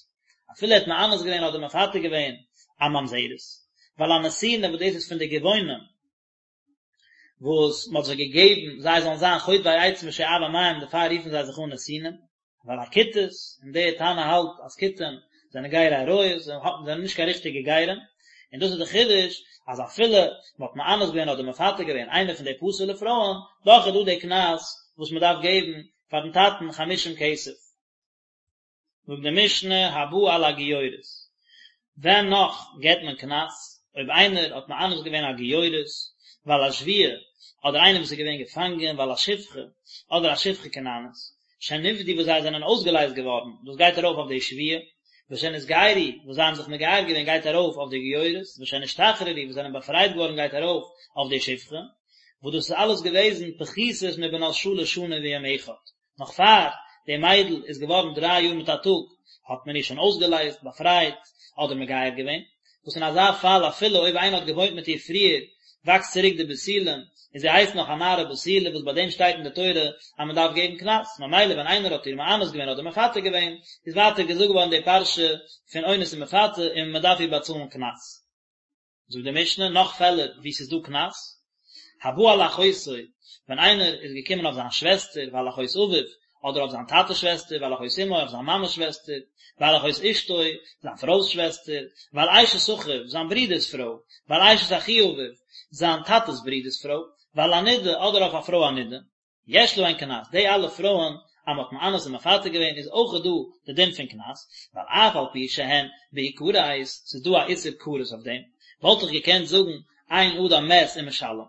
אפילו ער האט מאנס געווען אדער מפתה געווען א ממזרת, ועל הנתינה וואס דאס איז פון די גבעונים וואס מען האט זיי געגעבן זיי זאלן זיין חוטבי עצים ושואבי מים דערפאר רופן זיי זיך אן נתינים, ועל הכותית, און דער תנא האלט אז כותים זענען גרי אריות, זיי זענען נישט קיין ריכטיגע גרים, און דאס איז די חידוש, אז אפילו מען האט מאנס געווען אדער מפתה געווען איינע פון די פסול'ע פרויען, דאך איז דא די קנס וואס מען דארף געבן פאר'ן טאטן חמישים כסף. זאגט די משנה הבא על הגיורת, ווען נאך געבט מען קנס, אויב איינער האט מאנס געווען א גיורת, ועל השבויה, אדער איינער וואס איז געווען געפאנגען, ועל השפחה, אדער א שפחה כנענית, שנפדו וואס זיי זענען אויסגעלייזט געווארן, דאס גייט ארויף אויף די שבויה, ושנתגיירו, וואס זיי האבן זיך מגייר געווען גייט ארויף אויף די גיורת, ושנשתחררו, וואס זענען באפרייט געווארן גייט ארויף אויף די שפחה, וואס דאס איז אלעס געוועזן פחותות מבנות שלש שנים ויום אחד. נאך פאר די מיידל איז געווארן דריי יאר מיט א טאג האט מען איר שוין אויסגעלייזט, באפרייט, אדער מגייר געווען, וואס אין אזא פאל אפילו אויב איינער האט געוואוינט מיט איר פריער וואקסט צוריק די בתולים, און זי הייסט נאך א נערה בתולה וואס ביי דעם שטייט אין די תורה אז מען דארף געבן קנס, ממילא ווען איינער האט איר מאנס געווען אדער מפתה געווען, איז ווייטער געזאגט געווארן די פרשה פון אונס און מפתה און מען דארף איר באצאלן קנס. זאגט די משנה נאך פעלער וואו ס'איז דא קנס, הבא על אחותו, ווען איינער איז געקומען אויף זיין שוועסטער ועל אחות אביו, אדער אויף זיין טאטע'ס שוועסטער ועל אחות אמו, אויף זיין מאמע'ס שוועסטער, ועל אחות אשתו, זיין פרוי'ס שוועסטער, ועל אשת אחיו, זיין ברודער'ס פרוי, ועל אשת אחי אביו, זיין טאטע'ס ברודער'ס פרוי, ועל הנידה, אדער אויף א פרוי א נידה. יש להן קנס, די אלע פרויען אז מען האט מאנס און מפתה געווען איז אויך דא די דין פון קנס, ווייל אף על פי שהן בהכרת, ס'איז דא א איסור כרת אויף דעם, וואלט איך געקענט זאגן אין אדם מת ומשלם,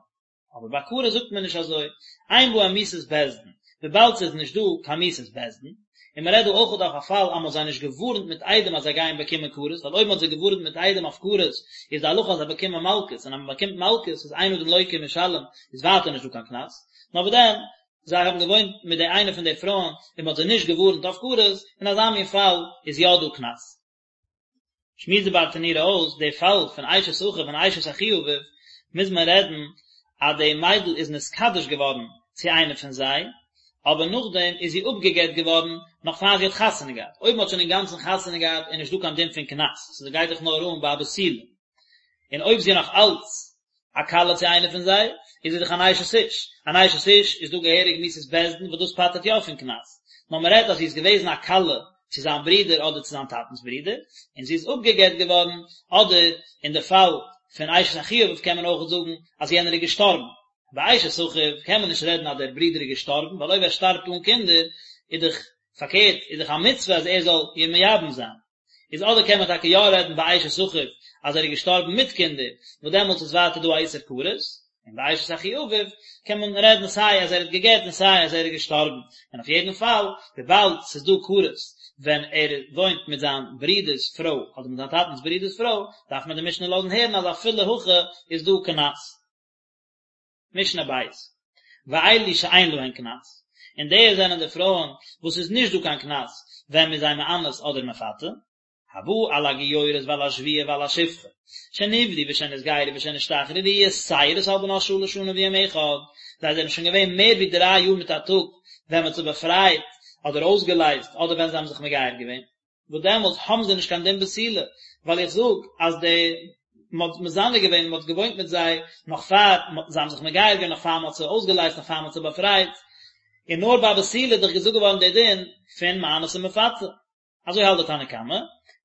אבער ביי כרת זאגט מען נישט אזוי, אין בהם מיתת בית דין, וויבאלד ס'איז נישט דא קיין מיתת בית דין, און מען רעדט דא אויך אויף א פאל אז מען האט זיי נישט געווארנט מיט עדים אז זיי גייען באקומען כרת, ווייל אויב מען האט זיי געווארנט מיט עדים אויף כרת איז די הלכה אז זיי באקומען מלקות, און אז מען באקומט מלקות איז אין אדם לוקה ומשלם איז ווייטער נישט דא קיין קנס, נאר וואס דען, זיי האבן געוואוינט מיט די איינע פון די פרויען און מען האט זיי נישט געווארנט אויף כרת, אין אזא מין פאל איז יא דא קנס. שמועסט די ברטנורא אויס די פאל פון אשת אחיו און אשת אחי אביו, מוז מען רעדן אז די מיידל איז נתקדש געווארן צו איינע פון זיי, אבער נאכדעם איז זי אפגע'גט געווארן נאך פאר זי האט חתונה געהאט, אויב מען האט שוין אינגאנצן חתונה געהאט איז נישט דא קיין דין פון קנס, ס'גייט דאך נאר אן ביי א בתולה, און אויב זי איז נאך אלץ א כלה צו איינער פון זיי, איז זי דאך אן אשת איש, אן אשת איש איז דא געהעריג מיתת בית דין וואס דאס פטר'ט יא פון קנס, נאר מען רעדט אז זי איז געוועזן א כלה צו זיין ברודער אדער צו זיין טאטנ'ס ברודער, און זי איז אפגע'גט געווארן, אדער אין די פאל פון אשת אחי אביו קען מען אויך זאגן אז יענער איז געשטארבן. ביי אשת אחיו קען מען נישט רעדן אז דער ברודער איז געשטארבן, ווייל אויב ער שטארבט אן קינדער איז דאך פארקערט, איז דאך א מצוה אז ער זאל איר מייבם זיין. איז אדער קען מען טאקע יא רעדן ביי אשת אחיו אז ער איז געשטארבן מיט קינדער, וואס דעמאלטס איז ווייטער דא א איסור כרת, און ביי אשת אחי אביו קען מען רעדן סיי אז ער האט גע'גט און סיי אז ער איז געשטארבן, און אויף יעדן פאל וויבאלד ס'איז דא כרת ווען ער וואוינט מיט זיין ברודער'ס פרוי אדער מיט זיין טאטנ'ס ברודער'ס פרוי, דארף מען די משנה לאזן הערן אז אפילו הכי איז דא קנס. משנה ב', ואלו שאין להן קנס, און די זענען די פרויען וואס איז נישט דא קיין קנס ווען מ'איז זיי מאנס אדער מפתה, הבא על הגיורת ועל השבויה ועל השפחה, שנפדו ושנתגיירו ושנשתחררו יתירות על בנות שלש שנים ויום אחד, זיי זענען שוין געווען מער ווי דריי יאר מיט א טאג ווען מ'האט זיי באפרייט אדער אויסגעלייזט אדער ווען זיי האבן זיך מגייר געווען. וואס דעמאלטס האבן זיי נישט קיין דין בתולה, ווייל איך זאג אז די מען האט מזנה געווען, מען האט געוואוינט מיט זיי נאך פאר זיי האבן זיך מגייר געווען, נאך פאר מען האט זיי אויסגעלייזט, נאך פאר מען האט זיי באפרייט, און נאר ביי בתולה איז דאך געזאגט געווארן דער דין פון מאנס און מפתה. אזוי האלט די תנא קמא.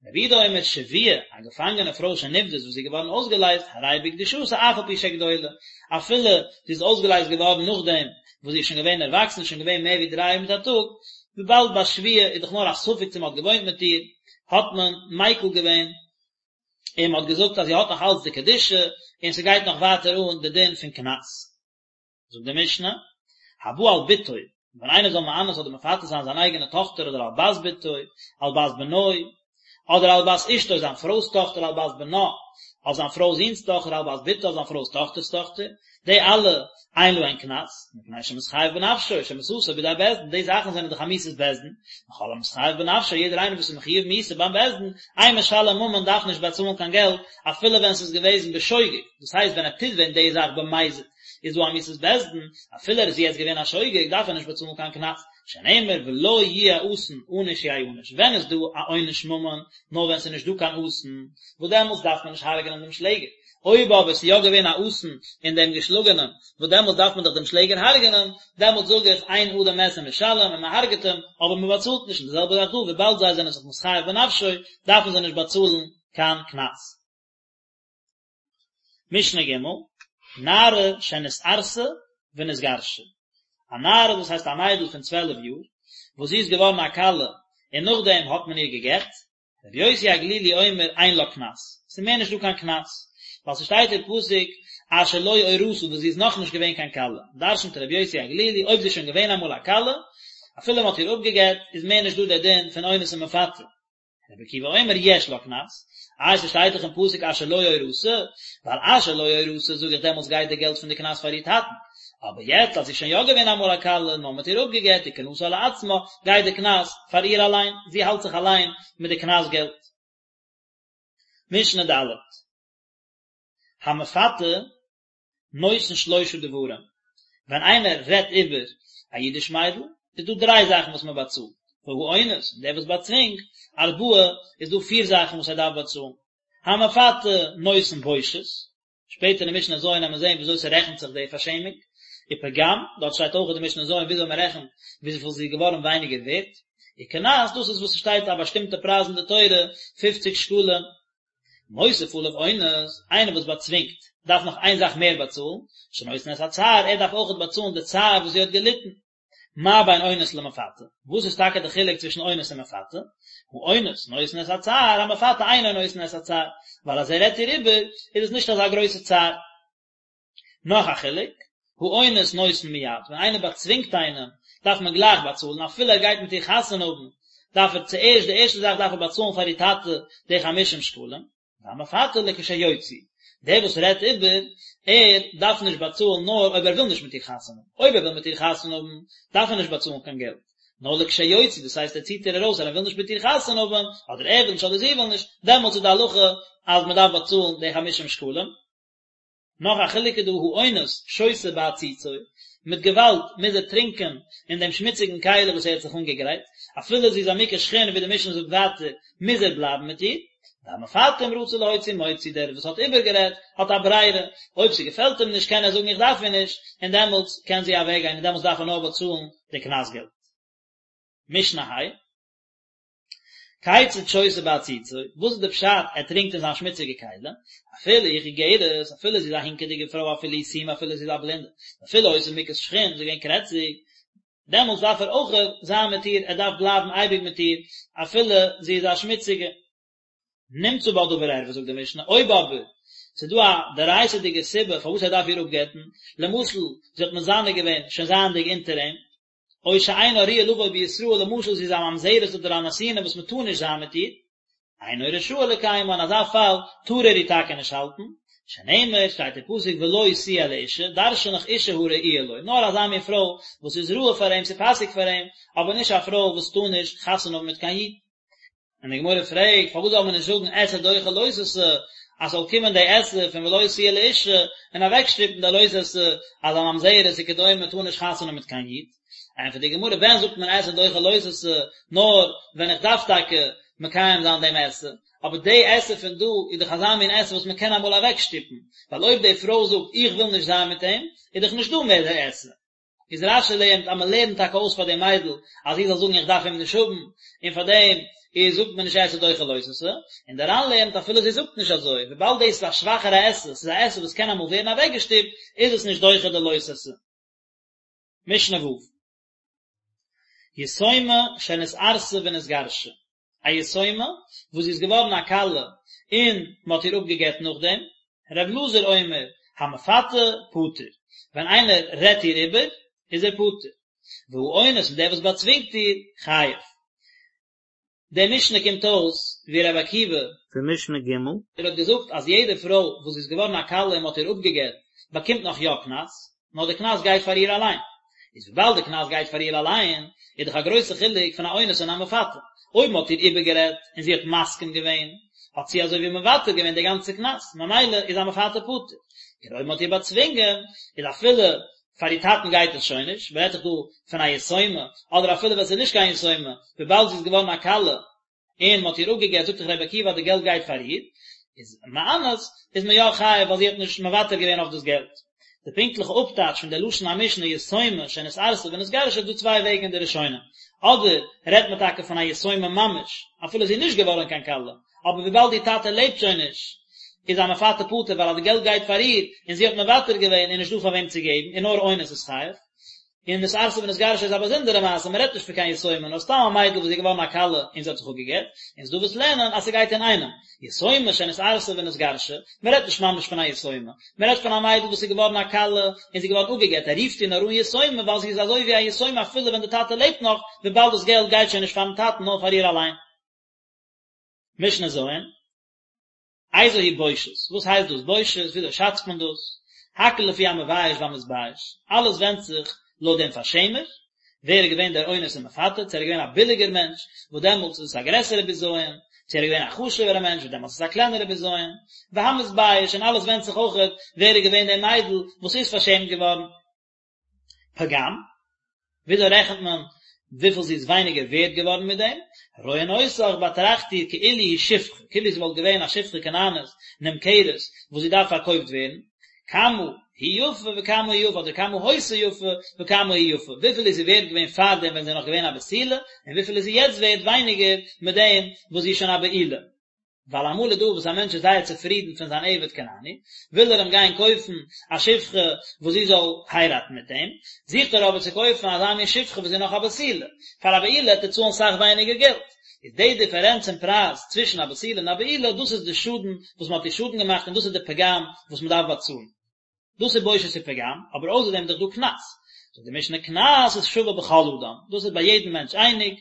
רבי יהודה אומר שבויה, א געפאנגענע פרוי שנפדית וואס איז געווארן אויסגעלייזט, הרי בקדושתה אף על פי שגדולה, אפילו זי איז אויסגעלייזט געווארן נאכדעם וואס זי איז שוין געווען ערוואקסן, שוין געווען מער ווי דריי יאר מיט א טאג, וויבאלד ביי שבויה איז דאך נאר א ספק צו מען האט געוואוינט מיט איר, האט מען מיקל געווען און מען האט געזאגט אז זי האט נאך אלץ די קדושה און ס'גייט נאך ווייטער אן די דין פון קנס. זאגט די משנה, הבא על בתו, ווען איינער זאל מאנס אדער מפתה זיין זיין אייגענע טאכטער אדער על בת בתו, על בת בנו, אדער על בת אשתו זיין פרוי'ס טאכטער על בת בנה, אויף זיין פרוי'ס זון'ס טאכטער על בת בתו אויף זיין פרוי'ס טאכטער'ס טאכטער, די אלע אין להן קנס, מפני שמתחייב בנפשו, שמיתתו בידי בית דין, די זאכן זענען דאך א מיתת בית דין, וכל המתחייב בנפשו, יעדער איינער וואס איז מחויב מיתה ביים בית דין, אין משלם ממון דארף נישט באצאלן קיין געלט, אפילו ווען ס'איז געוועזן בשוגג, דאס הייסט ווען ער טוט ווען די זאך במזיד, איז דא א מיתת בית דין, אפילו ער איז יעצט געווען א שוגג דארף ער נישט באצאלן קיין קנס, שנאמר ולא יהיה אסון ענוש יענש, ווען איז דא א עונש ממון, נאר ווען ס'איז נישט דא קיין אסון, וואס דעמאלטס דארף מען נישט הרג'נען דעם שלעגער, אויב אבער ס'איז יא געווען א אסון אין דעם געשלאגענעם, וואס דעמאלטס דארף מען דאך דעם שלעגער הרג'נען, דעמאלטס זאג איך אין אדם מת ומשלם און מען הרג'ט אים, אבער מען באצאלט נישט, און די זעלבע זאך דא, וויבאלד זיי זענען זיך מתחייב בנפשו, דארפן זיי נישט באצאלן קיין קנס. משנה ג', נערה שנתארסה ונתגרשה, א נערה דאס הייסט א מיידל פון צוועלף יאר, וואס זי איז געווארן א כלה און נאכדעם האט מען איר גע'גט, רבי יוסי הגלילי אומר אין לה קנס, ס'איז מער נישט דא קיין קנס, ווייל ס'שטייט אין פסוק אשר לא אורשה וואס זי איז נאכנישט געווען קיין כלה, דרש'נט רבי יוסי הגלילי אויב זי איז שוין געווען אמאל א כלה, אפילו מ'האט איר אפגע'גט, איז מער נישט דא דער דין פון אונס און מפתה. רבי עקיבא אומר יש לה קנס, איי ס'שטייט דאך אין פסוק אשר לא אורשה, ווייל אשר לא אורשה זאג איך דעמאלטס גייט די געלט פון די קנס פאר איר טאטן, אבער יעצט אז זי איז שוין יא געווען אמאל א כלה נאר מ'האט איר אפגע'גט וקנסה לעצמה, גייט די קנס פאר איר אליין, זי האלט זיך אליין מיט די קנס געלט. משנה ד'. המפתה. נותן שלושה דברים, ווען איינער רעדט איבער א אידיש מיידל, איז דא דריי זאכן וואס מען באצאלט, והאונס, און דער וואס באצווינגט, ארבעה, איז דא פיר זאכן וואס ער דארף באצאלן, המפתה נותן בושת, שפעטער אין משנה ז' וועט מען זען וויאזוי ס'רעכנט זיך די פארשעמונג, ופגם, דארט שטייט אויך אין די משנה ז' וויאזוי מען רעכנט וויפיל זי איז געווארן ווייניגער ווערט, וקנס, דאס איז וואס ס'שטייט א באשטימטע פרייז אין די תורה, פופציג שקלים. מוסיף עליו אונס, איינער וואס באצווינגט, דארף נאך איין זאך מער באצאלן, שנותן את הצער, ער דארף אויכעט באצאלן די צער וואס זי האט געליטן. מה בין אונס למפתה? וואס איז טאקע די חילוק צווישן אונס און מפתה? האונס נותן את הצער, המפתה אינו נותן את הצער, ווייל אז ער רעדט איר איבער, איז עס נישט אזא גרויסע צער. נאך א חילוק, האונס נותן מיד, ווען איינער באצווינגט איינעם, דארף מען גלייך באצאלן, אפילו ער גייט מיט איר חתונה האבן, דארף ער צוערשט, די ערשטע זאך דארף ער באצאלן פאר איר טאטע די חמישים שקלים, והמפתה לכשיוציא, דער וואס רעדט איבער, ער דארף נישט באצאלן נאר אויב ער וויל נישט מיט איר חתונה האבן, אויב ער וויל מיט איר חתונה האבן, דארף ער נישט באצאלן קיין געלט, נאר לכשיוציא, דאס הייסט ער ציט איר ארויס אז ער וויל נישט מיט איר חתונה האבן, אדער ער וויל נישט אדער זי וויל נישט, דעמאלטס איז די הלכה אז מען דארף באצאלן די חמישים שקלים. נאך א חילוק איז דא האונס שותה בעציצו, מיט געוואלד מוז ער טרינקען אין דעם שמוציגן כלי וואס ער האט זיך אנגעגרייט, אפילו זי איז א מוכת שחין ווי די משנה זאגט ווייטער מוז ער בלייבן מיט איר, והמפתה אם רצה להוציא מוציא דער וואס האט איבערגערעדט האט א ברירה, אויב ס'געפעלט אים נישט קען ער זאגן איך דארף איר נישט, און דעמאלטס קען זי אוועקגיין און דעמאלטס דארף ער נאר באצאלן די קנס געלט. משנה ה'. כיצד שותה בעציצו, וואס איז די פשט ער טרינקט אין זיין שמוציגע כלי, אפילו היא חיגרת, אפילו זי איז א הינקעדיגע פרוי אפילו היא סומא אפילו זי איז א בלינדע, אפילו היתה מוכת שחין, זי איז געווען קרעציג, דעמאלטס דארף ער אויך זיין מיט איר, ער דארף בלייבן אייביג מיט איר, אפילו זי איז א שמוציגע. נמצא בה דבר ערווה זאגט די משנה, אויב אבער ס'איז דא א דאורייתא'דיגע סיבה פארוואס ער דארף איר אפגט'ן, למשל זי האט מזנה געווען שוין זייענדיג אונטער אים, או שאינה ראויה לבוא בישראל, למשל זי איז א ממזרת אדער א נתינה וואס מען טאר נישט זיין מיט איר, אינו רשאי לקיימה, אין אזא פאל טאר ער איר טאקע נישט האלטן, שנאמר, שטייט אין פסוק ולו תהיה לאשה, דרשן איך אשה הראויה לו, נאר אזא מין פרוי וואס איז ראוי פאר אים, ס'פאסיג פאר אים, אבער נישט א פרוי וואס טאר נישט חתונה האבן מיט קיין איד. און די גמרא פרעגט, פארוואס זאל מען נישט זאגן עשה דוחה לא תעשה, אז ס'זאל קומען די עשה פון ולו תהיה לאשה, און אוועקשטופן די לא תעשה, אז א ממזרת וכדומה טאר נישט חתונה מיט קיין איד? ענטפערט די גמרא, ווען זאגט מען עשה דוחה לא תעשה, נאר ווען איך דארף טאקע מקיים זיין דעם עשה, אבער די עשה פון דא איז דאך אזא מין עשה וואס מען קען אמאל אוועקשטופן, ווייל אויב די פרוי זאגט איך וויל נישט זיין מיט אים, איז דאך נישט דא מער די עשה. איז רש"י לערנט אז מען לערנט טאקע אויס פאר די מיידל אז זי זאל זאגן איך דארף אים נישט האבן, און פאר דעם איז זאגט מען נישט עשה דוחה לא תעשה, און דער ר"ן לערנט אפילו זי זאגט נישט אזוי, וויבאלד דאס איז א שוואכערע עשה, ס'איז א עשה וואס קען אמאל ווערן אוועקגעשטופט, איז עס נישט דוחה די לא תעשה. משנה ו'. יתומה שנתארסה ונתגרשה, א יתומה וואס זי איז געווארן א כלה און מען האט איר אפגעגט נאכדעם, ר' אלעזר אומר, המפתה פטור, ווען איינער רעדט איר איבער איז ער פטור, והאונס און דער וואס באצווינגט איר, חייב. די משנה קומט אויס ווי ר' עקיבא. פון משנה ג'. ער האט געזאגט אז יעדע פרוי וואס איז געווארן א כלה און מען האט איר אפגעגט באקומט נאך יא קנס, נאר די קנס גייט פאר איר אליין. איז וויבאלד די קנס גייט פאר איר אליין, איז דאך א גרויסע חילוק פון א אונס און א מפתה. אויב מען האט איר איבערגערעדט און זי האט מסכים געווען, האט זי אזוי ווי מוותר געווען די גאנצע קנס, ממילא איז א מפתה פטור. און אויב מען האט איר באצווינגען, איז אפילו פאר איר טאטן גייט עס שוין נישט, מען רעדט דאך דא פון א יתומה, אדער אפילו ווען עס איז נישט קיין יתומה, וויבאלד זי איז געווארן א כלה, און מען האט איר אפגעגט זאגט דאך רבי עקיבא אז די געלט גייט פאר איר, איז מאנס איז מען יא חייב ווייל זי האט נישט מוותר געווען אויף דאס געלט. די פונקטליכע אפטייטש פון די לשון המשנה יתומה שנתארסה ונתגרשה איז דא צוויי וועגן אין די ראשונים, אדער רעדט מען טאקע פון א יתומה ממש, אפילו זי איז נישט געווארן קיין כלה, אבער וויבאלד איר טאטע לעבט שוין נישט, איז א מפתה פטור ווייל אז די געלט גייט פאר איר, און זי האט מוותר געווען איז נישט דא פאר וועם צו געבן, און נאר אונס איז חייב. און נתארסה ונתגרשה איז א באזונדערע מעשה, מען רעדט נישט פון קיין יתומה, נאר סתם א מיידל וואס איז געווארן א כלה און זי האט זיך אפגעגט, און ס'דא וואס לערנען אז ס'גייט אינאיינעם, יתומה שנתארסה ונתגרשה, מען רעדט נישט ממש פון א יתומה, מען רעדט פון א מיידל וואס איז געווארן א כלה און זי איז געווארן אפגעגט, ער רופט איר נאר אן יתומה ווייל זי איז אזוי ווי א יתומה אפילו ווען די טאטע לעבט נאך, וויבאלד דאס געלט גייט שוין נישט פארן טאטן נאר פאר איר אליין. משנה ז'. איזו היא בושת, וואס הייסט דאס בושת, וויאזוי שאצט מען דאס, הכל לפי המבייש והמתבייש, אלעס ווענדט זיך לויט דעם פארשעמער, ווער איז געווען דער אונס און מפתה, צו ער איז געווען א ביליגער מענטש, וואס דעמאלטס איז עס א גרעסערע בזיון, צו ער איז געווען א חשוב'ערע מענטש וואס דעמאלטס איז א קלענערע בזיון, והמתבייש, און אלעס ווענדט זיך אויכעט ווער איז געווען די מיידל וואס איז פארשעמט געווארן. פגם, וויאזוי רעכנט מען וויפיל זי איז ווייניגער ווערד געווארן מיט דעם? רואין אותך באטראכט איר כאילו היא שפחה, כאילו זי וואלט געווען א שפחה כנענית נמכרת וואס זי דארף פארקויפט ווערן, כמה היא יפה וכמה היא יפה אדער כמה היתה יפה וכמה היא יפה, וויפיל איז זי ווערד געווען פארדעם ווען זי איז נאך געווען א בתולה, און וויפיל איז זי יעצט ווערד ווייניגער מיט דעם וואס זי איז שוין א בעולה. ווייל אמאל איז דא וואס א מענטש איז זייער צופרידן פון זיין עבד כנעני, וויל ער אים גיין קויפן א שפחה וואס זי זאל הייראטן מיט אים, זוכט ער אבער צו קויפן אזא מין שפחה וואס איז נאך א בתולה, פאר א בעולה וועט ער צאלן סאך ווייניגער געלט, איז די דיפערענץ אין פרייז צווישן א בתולה און א בעולה, דאס איז די שאדן וואס מען האט איר שאדן געמאכט און דאס איז די פגם וואס מען דארף באצאלן. דאס איז בושת ופגם, אבער אויסער דעם איז דאך דא קנס. זאגט די משנה קנס איז שווה בכל אדם, דאס איז ביי יעדן מענטש אייניג,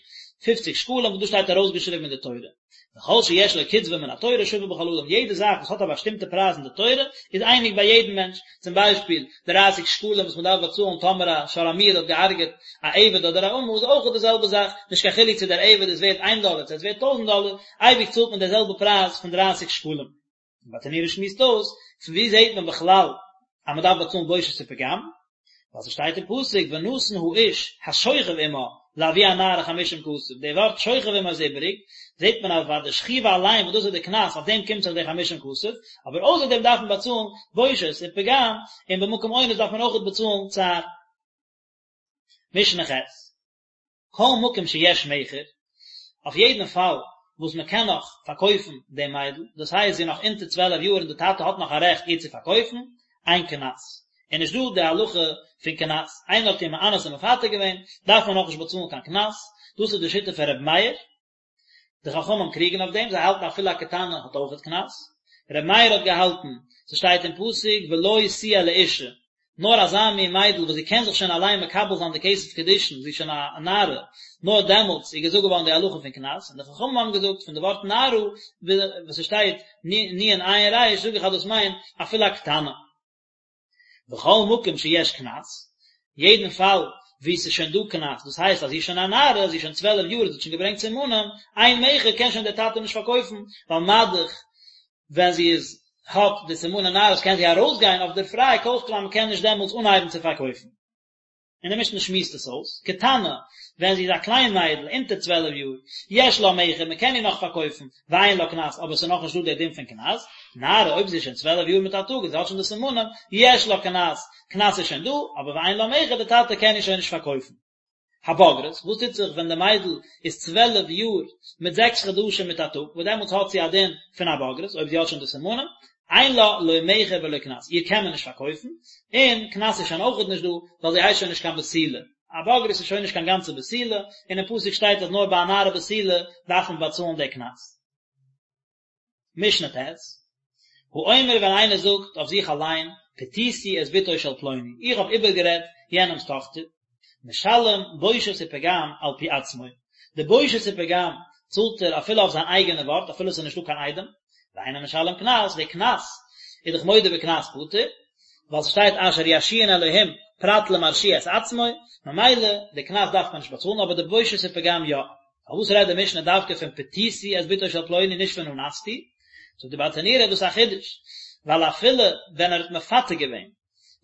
פופציג שקלים וואס דאס שטייט ארויסגעשריבן אין די תורה. וכל שיש לו קצבה מן התורה שווה בכל אדם, יעדע זאך וואס האט א באשטימטע פרייז אין די תורה איז אייניג ביי יעדן מענטש, צום ביישפיל, דרייסיג שקלים וואס מען דארף באצאלן טאמער א שור המועד האט געהארגעט א עבד אדער א אמה איז אויך די זעלבע זאך, נישט קיין חילוק צו דער עבד איז ווערט איין דאלער צו ער איז ווערט טויזנט דאלער, אייביג צאלט מען די זעלבע פרייז פון דרייסיג שקלים. ברטנורא שמועסט אויס, פון וואו זעט מען בכלל אז מען דארף באצאלן בושת ופגם? ווייל ס'שטייט אין פסוק ונתן האיש השוכב עמה לאבי הנערה חמישים כסף, די ווארט שוכב עמה איז איבעריג, זעט מען אז פאר די שכיבה אליין וואס דאס איז די קנס אויף דעם קומט זיך די חמישים כסף, אבער אויסער דעם דארף מען באצאלן בושת און פגם, און במקום אונס דארף מען אויכעט באצאלן צער. משנה ח'. כל מקום שיש מכר, אויף יעדן פאל וואס מען קען נאך פארקויפן דעם מיידל, דאס הייסט זי איז נאך אונטער צוועלף יאר און די טאטע האט נאך א רעכט איר צו פארקויפן, אין קנס. איז נישט דא די הלכה פון קנס, איינער האט איר מאנס און מפתה געווען, דארף מען נאכנישט באצאלן קיין קנס, דאס איז די שיטה פון ר' מאיר, די חכמים קריגן אויף דעם, זיי האלטן אפילו א קטנה האט אויכעט קנס. ר' מאיר האט געהאלטן, ס'שטייט אין פסוק ולו תהיה לאשה, נאר אזא מין מיידל וואס זי קען זיך שוין אליין מקבל זיין די כסף קידושין, זי איז שוין א נערה, נאר דעמאלטס איז געזאגט געווארן די הלכה פון קנס, און די חכמים האבן געזאגט פון די ווארט נערה, וואס ס'שטייט נון עין ריש, זאג איך אז דאס מיינט אפילו א קטנה. וכל מקום שיש קנס, יעדן פאל וואו ס'איז שוין דא קנס, דאס הייסט אז זי איז שוין א נערה, זי איז שוין צוועלף יאר, זי האט שוין געברענגט סימנים, אין מכר קען שוין דער טאטע נישט פארקויפן, ווייל מה-דאך ווען זי איז האט די סימני נערות קען זי ארויסגיין אויף דער פריי, כל שכן אז מ'קען נישט דעמאלטס אנהייבן צו פארקויפן. און די משנה שמועסט עס אויס, קטנה, ווען זי איז א קליין מיידל, אונטער צוועלף יאר, יש לה מכר, מען קען איר נאך פארקויפן, ואין לה קנס, אבער עס איז נאכנישט דא דער דין פון קנס, נערה, אויב זי איז שוין צוועלף יאר מיט א טאג און זי האט שוין די סימנים, יש לה קנס, קנס איז שוין דא, אבער ואין לה מכר, די טאטע קען איר שוין נישט פארקויפן. הבוגרת, וואס טוט זיך ווען די מיידל איז צוועלף יאר מיט זעקס חדשים מיט א טאג, וואס דעמאלטס האט זי א דין פון א בוגרת, אויב זי האט שוין די סימנים, אין לה לא מכר ולא קנס, איר קען מען נישט פארקויפן, און קנס איז שוין אויכעט נישט דא, ווייל זי הייסט שוין נישט קיין בתולה, א בוגרת איז שוין נישט קיין גאנצע בתולה, און אין פסוק שטייט אז נאר ביי א נערה בתולה דארף מען באצאלן די קנס. משנה ט', האומר ווען איינער זאגט אויף זיך אליין, פתיתי את בתו של פלוני, איך האב איבערגערעדט יענעמ'ס טאכטער, משלם בושת ופגם על פי עצמו, די בושת ופגם צאלט ער אפילו אויף זיין אייגענע ווארט אפילו עס איז נישטא קיין עדים, ואינו משלם קנס, די קנס איז דאך מודה בקנס פטור, ווייל ס'שטייט אשר ירשיען אלהים פרט למרשיע את עצמו, ממילא די קנס דארף מען נישט באצאלן אבער די בושת ופגם יא. פארוואס רעדט די משנה דווקא פון פתיתי את בתו של פלוני נישט פון אנסתי? זאגט די ברטנורא דאס איז א חידוש, ווייל אפילו ווען ער האט מפתה געווען,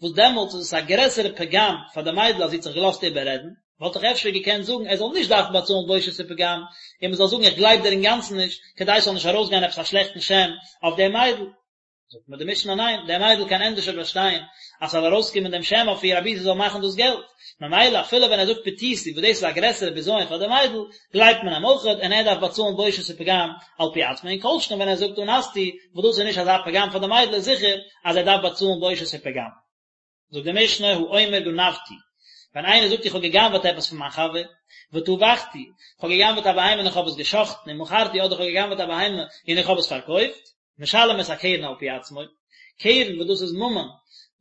וואס דעמאלטס איז עס א גרעסערע פגם פאר די מיידל אז זי האט זיך געלאזט איבעררעדן, וואלט איך אפשר געקענט זאגן ער זאל נישט דארפן באצאלן בושת ופגם, און מען זאל זאגן איך גלייב דיר אינגאנצן נישט, כדי ס'זאל נישט ארויסגיין עפעס א שלעכטן שם אויף די מיידל. זאגט מיר די משנה ניין, די מיידל קען ענדערשער באשטיין אז ס'זאל ארויסקומען דעם שם אויף איר אבי זי זאל מאכן דאס געלט, ממילא אפילו ווען ער זאגט פתיתי וואס דאס איז א גרעסערע בזיון פאר די מיידל, גלייבט מען אים אויכעט און ער דארף באצאלן בושת ופגם על פי עצמו, און כל שכן ווען ער זאגט אנסתי וואס דאס איז נישט אזא פגם פאר די מיידל איז זיכער אז ער דארף באצאלן בושת ופגם. זאגט די משנה האומר גנבתי, ווען איינער זאגט איך האב גע'גנב'עט עפעס פון מיין חבר, וטבחתי, איך האב גע'גנב'עט א בהמה און איך האב עס גע'שחט'ן, ומכרתי אדער איך האב גע'גנב'עט א בהמה און איך האב עס פארקויפט, משלם את הקרן על פי עצמו, קרן וואס דאס איז ממון,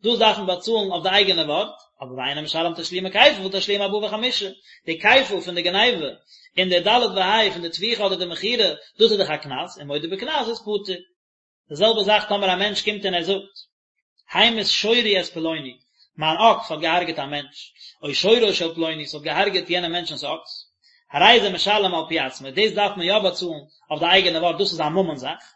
דאס דארף מען באצאלן אויף די אייגענע ווארט, אבער ואינו משלם תשלומי כפל ותשלומי ארבעה וחמישה, די כפל פון די גניבה און די ד' וה' פון די טביחה אדער די מכירה, דאס איז דאך א קנס, און מודה בקנס איז פטור. די זעלבע זאך טאמער א מענטש קומט און ער זאגט, המית שורי את פלוני, מיין אקס האט געהארגעט א מענטש, או שורו של פלוני, ס'האט געהארגעט יענעם מענטשנ'ס אקס. הרי זה משלם על פי עצמו, דאס דארף מען יא באצאלן אויף די אייגענע ווארט, דאס איז א ממון זאך.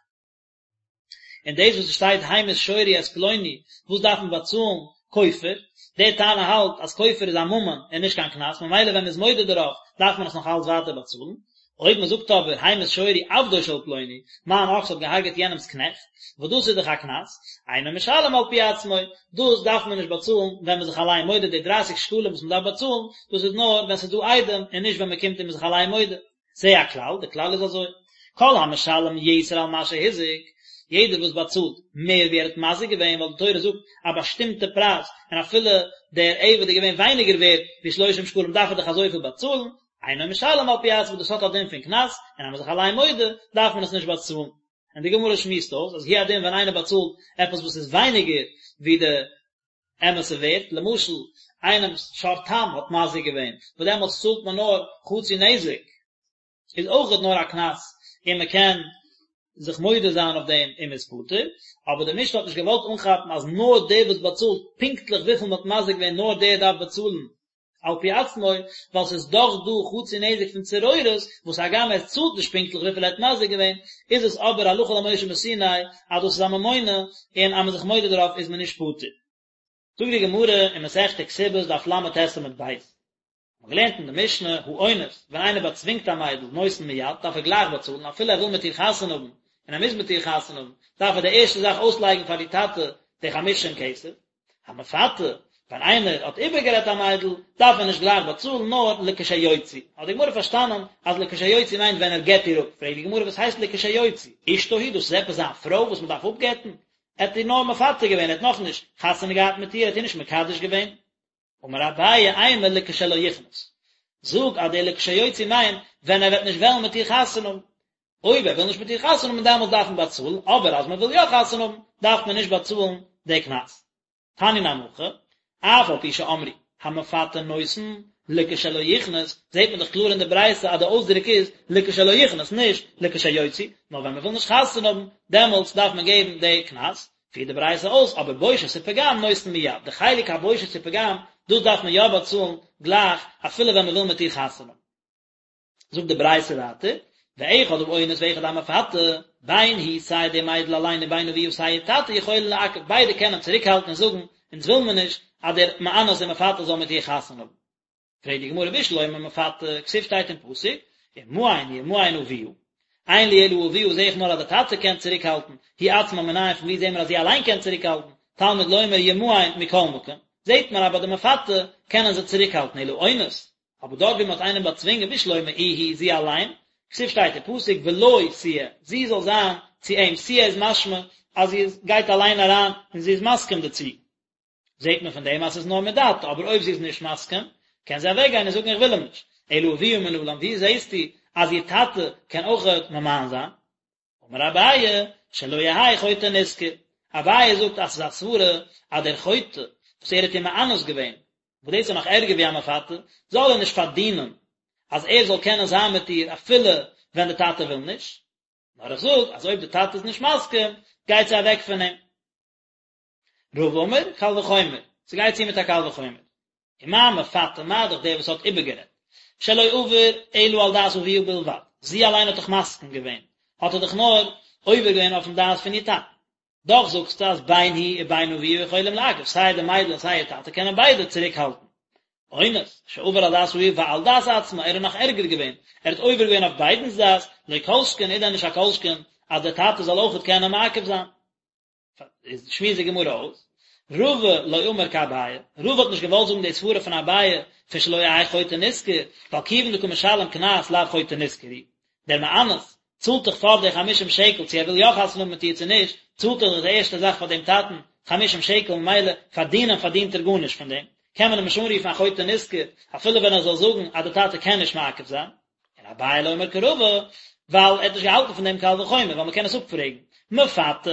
און דאס וואס עס שטייט המית שורי את פלוני, וואס דארף מען באצאלן כופר, דער תנא האלט אז כופר איז א ממון און נישט קיין קנס, ממילא ווען מען איז מודה דערויף דארף מען עס נאך אלץ ווייטער באצאלן. אויב מען זאגט אבער המית שורי עבדו של פלוני, מיין אקס האט געהארגעט יענעמס קנעכט, וואס דאס איז דאך א קנס, אינו משלם על פי עצמו, דאס דארף מען נישט באצאלן ווען מען איז זיך אליין מודה, די דרייסיג שקלים וואס מען דארף באצאלן, דאס איז נאר ווען ס'איז דא עדים און נישט ווען מען קומט און מען איז זיך אליין מודה. זה הכלל, די כלל איז אזוי, כל המשלם יתר על מה שהזיק, יעדער וואס באצאלט מער ווי ער האט מזיק געווען, ווייל די תורה זאגט א באשטימטע פרייז, און אפילו דער עבד איז געווען ווייניגער ווערד ווי שלושים שקלים דארף ער דאך אזויפיל באצאלן, אינו משלם על פי עצמו, דאס האט א דין פון קנס, און אז מען איז זיך אליין מודה, דארף מען עס נישט באצאלן. און די גמרא שמועסט אויס אז הוא הדין ווען איינער באצאלט עפעס וואס איז ווייניגער ווי די אמת'ע ווערט, למשל איינעמ'ס שור תם האט מזיק געווען, וואס דעמאלטס צאלט מען נאר חצי נזק, איז אויכעט נאר א קנס און מען קען זיך מודה זיין אויף דעם און מען איז פטור, אבער די משנה האט נישט געוואלט אנכאפן אז נאר דער וואס באצאלט פונקטליך וויפיל מען האט מזיק געווען נאר דער דארף באצאלן על פי עצמו, ווייל ס'איז דאך דא חצי נזק פון צרורות, וואס הגם ער צאלט נישט פונקטליך וויפיל ער האט מזיק געווען, איז עס אבער הלכה למשה מסיני אז דאס איז א ממונא און אז מען איז זיך מודה דערויף איז מען נישט פטור. זאגט די גמרא אין מסכת כתובות דף ל"ט עמוד ב', מ'האט געלערנט אין די משנה, האונס, ווען איינער באצווינגט א מיידל, נותן מיד, דארף ער גלייך באצאלן, אפילו ער וויל מיט איר חתונה האבן, און ער מוז מיט איר חתונה האבן, דארף ער די ערשטע זאך אויסלייגן פאר די טאטע די חמישים כסף. המפתה, ווען איינער האט איבערגערעדט א מיידל, דארף ער נישט גלייך באצאלן, נאר לכשיוציא. האט די גמרא פארשטאנען אז לכשיוציא מיינט ווען ער גט איר אפ. פרעגט די גמרא וואס הייסט לכשיוציא? אשתו היא, דאס איז עפעס זיין פרוי וואס מען דארף אפגט'ן? ער האט איר נאר מפתה געווען, ער האט נאכנישט חתונה געהאט מיט איר, ער האט איר נישט מקדש געווען. אמר אביי אימא לכשלא יכנוס, זאג אז דער לכשיוציא מיינט ווען ער וועט נישט וועלן מיט איר חתונה האבן, אויב ער וויל נישט מיט איר חתונה האבן דעמאלטס דארף מען באצאלן, אבער אז מען וויל יא חתונה האבן דארף מען נישט באצאלן די קנס. תניא נמי הכי, אף על פי שאמרו המפתה נותן לכשלא יכנוס, זעט מען דאך קלאר אין די ברייתא אז די אויסדרוק איז לכשלא יכנוס נישט לכשיוציא, נאר ווען מען וויל נישט חתונה האבן דעמאלטס דארף מען געבן די קנס, פירט די ברייתא אויס, אבער בושת ופגם נותן מיד, די חלק הבושת ופגם, דאס דארף מען יא באצאלן גלייך, אפילו ווען מען וויל מיט איר חתונה האבן. זאגט די ברייתא ווייטער, ואחד האונס ואחד המפתה, בין היא סיי די מיידל אליין ובין אביה סיי איר טאטע יכולין לעכב, ביידע קענען צוריקהאלטן און זאגן, אונז וויל מיר נישט אז דער מאנס און מפתה זאל מיט איר חתונה האבן. פרעגט די גמרא בשלמא מפתה, כתיב שטייט אין פסוק, ומאן ימאן אביה, אין לי אלא אביה זעה איך נאר אז די טאטע קען צוריק האלטן, היא עצמה מנין פון ווי זעהן מיר אז זי אליין קען צוריק האלטן, תלמוד לומר ימאן מכל מקום, זעהט מען אז ביי די מפתה קענען זיי צוריק האלטן, אלא אונס, אבער דארט ווי מען האט איינעם באצווינגען בשלמא איהי זי אליין, כתיב שטייט אין פסוק ולו תהיה, זי זאל זיין צו אים, תהיה איז משמע אז זי איז גייט אליין אריין און זי איז מסכים דערצו. זעט מען פון דעם אז ס'איז נאר מדעתה, אבער אויב זי איז נישט מסכים, קען זי אוועקגיין און זאגן איך וויל אים נישט. אלא אביה מנלן, ווי זעסטו אז איר טאטע קען אויכעט ממאן זיין? אמר אביי, שלא יהא חוטא נשכר. אביי זאגט אז ס'איז א סברה אז דער חוטא וואס ער האט איר מאנס געווען, וואס דאס איז נאך ערגער ווי א מפתה, זאל ער נישט פארדינען אז ער זאל קענען זיין מיט איר אפילו ווען די טאטע וויל נישט. נאר איך זאג אז אויב די טאטע איז נישט מסכים, גייט זי אוועק פון אים. רבא אמר, קל וחומר, ס'גייט צו מיט א קל וחומר. ומה מפתה מה דאך דער וואס האט איבערגערעדט, שלא עבר אלא על דעת אביה בלבד, זי אליין האט דאך מסכים געווען, האט ער דאך נאר עובר געווען אויפן דעת פון איר טאטן. דאך זאגסטו אז בין היא ובין אביה יכולים לעכב, סיי די מיידל און סיי איר טאטע קענען ביידע צוריק האלטן. אונס, שעבר על דעת אביה ועל דעת עצמה, ער איז נאך ערגער געווען, ער האט עובר געווען אויף ביידנס דעת, לא כל שכן איז דען נישט א כל שכן אז דער טאטע זאל אויכעט קענען מעכב זיין. איז שמועסט די גמרא אויס, רבא לא אמר כאביי, רבא האט נישט געוואלט זאגן די סברה פון אביי פון שלא יהא חוטא נשכר, ווייל כיוון דקא משלם קנס לאו חוטא נשכר הוא, דער מאנס צאלט דאך פאר די חמישים שקל צו ער וויל יא חתונה האבן מיט איר צו נישט, צאלט ער דאך די ערשטע זאך פאר דעם טאטן חמישים שקל ממילא פארדינען פארדינט ער גארנישט פון דעם, קען מען אים נישט אנרופן א חוטא נשכר אפילו ווען ער זאל זאגן אז די טאטע קען נישט מעכב זיין. און אביי לא אמר כרבא, ווייל ער האט נישט געהאלטן פון דעם קל וחומר, ווייל מ'קען עס אפפרעגן. מפתה,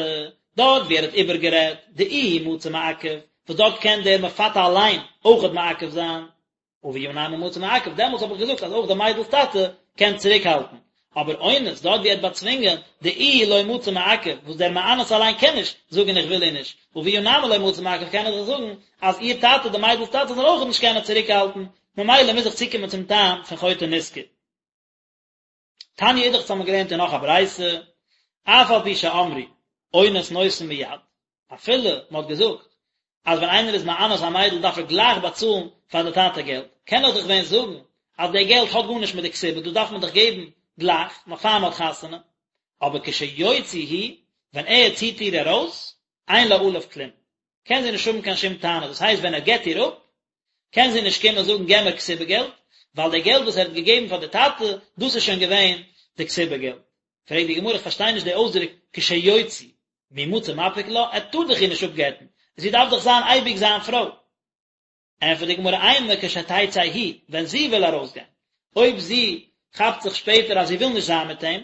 דארט ווי ער האט איבערגערעדט, דאיהו מצי מעכב, וואס דארט קען דער מפתה אליין אויכעט מעכב זיין, אביה נמי מצי מעכב, דעמאלטס האב איך געזאגט אז אויך די מיידל'ס טאטע קען צוריקהאלטן. אבער אונס, דארט ווי ער האט באצווינגען, דאיהו לא מצי מעכב, וואס דער מאנס אליין קען נישט זאגן איך וויל איר נישט, אביה נמי לא מצי מעכב קען ער דאך זאגן אז איר טאטע, די מיידל'ס טאטע, זאל אויכעט נישט קענען צוריקהאלטן, ממילא מוז איך צוקומען צום טעם פון חוטא נשכר. תניא אידך האבן מיר געלערנט אין נאך א ברייתא, אף על פי שאמרו אונס נותן מיד, אפילו מען האט געזאגט אז ווען איינער איז מאנס א מיידל דארף ער גלייך באצאלן פאר די טאטע געלט, קען איך דאך ווען זאגן אז די געלט האט גארנישט מיט די כתובה, דאס דארף מען דאך געבן גלייך, נאך פאר מען האט חתונה, אבער כשיוציא הוא, ווען ער ציט איר ארויס, אין לה עליו כלום, קען זי נישט האבן קיין שום טענה, דאס הייסט ווען ער גט איר אפ, קען זי נישט קומען זאגן געב מיר כתובה געלט, ווייל די געלט וואס ער האט געגעבן פאר די טאטע, דאס איז שוין געווען די כתובה געלט. פרעגט די גמרא, איך פארשטיי נישט די אויסדרוק כשיוציא, מי מצי מפיק לה, ער טאר דאך איר נישט אפגט'ן, זי דארף דאך זיין אייביג זיין פרוי. ענטפערט די גמרא אימא כשתצא היא, ווען זי וויל ארויסגיין, אויב זי כאפט זיך שפעטער אז זי וויל נישט זיין מיט אים,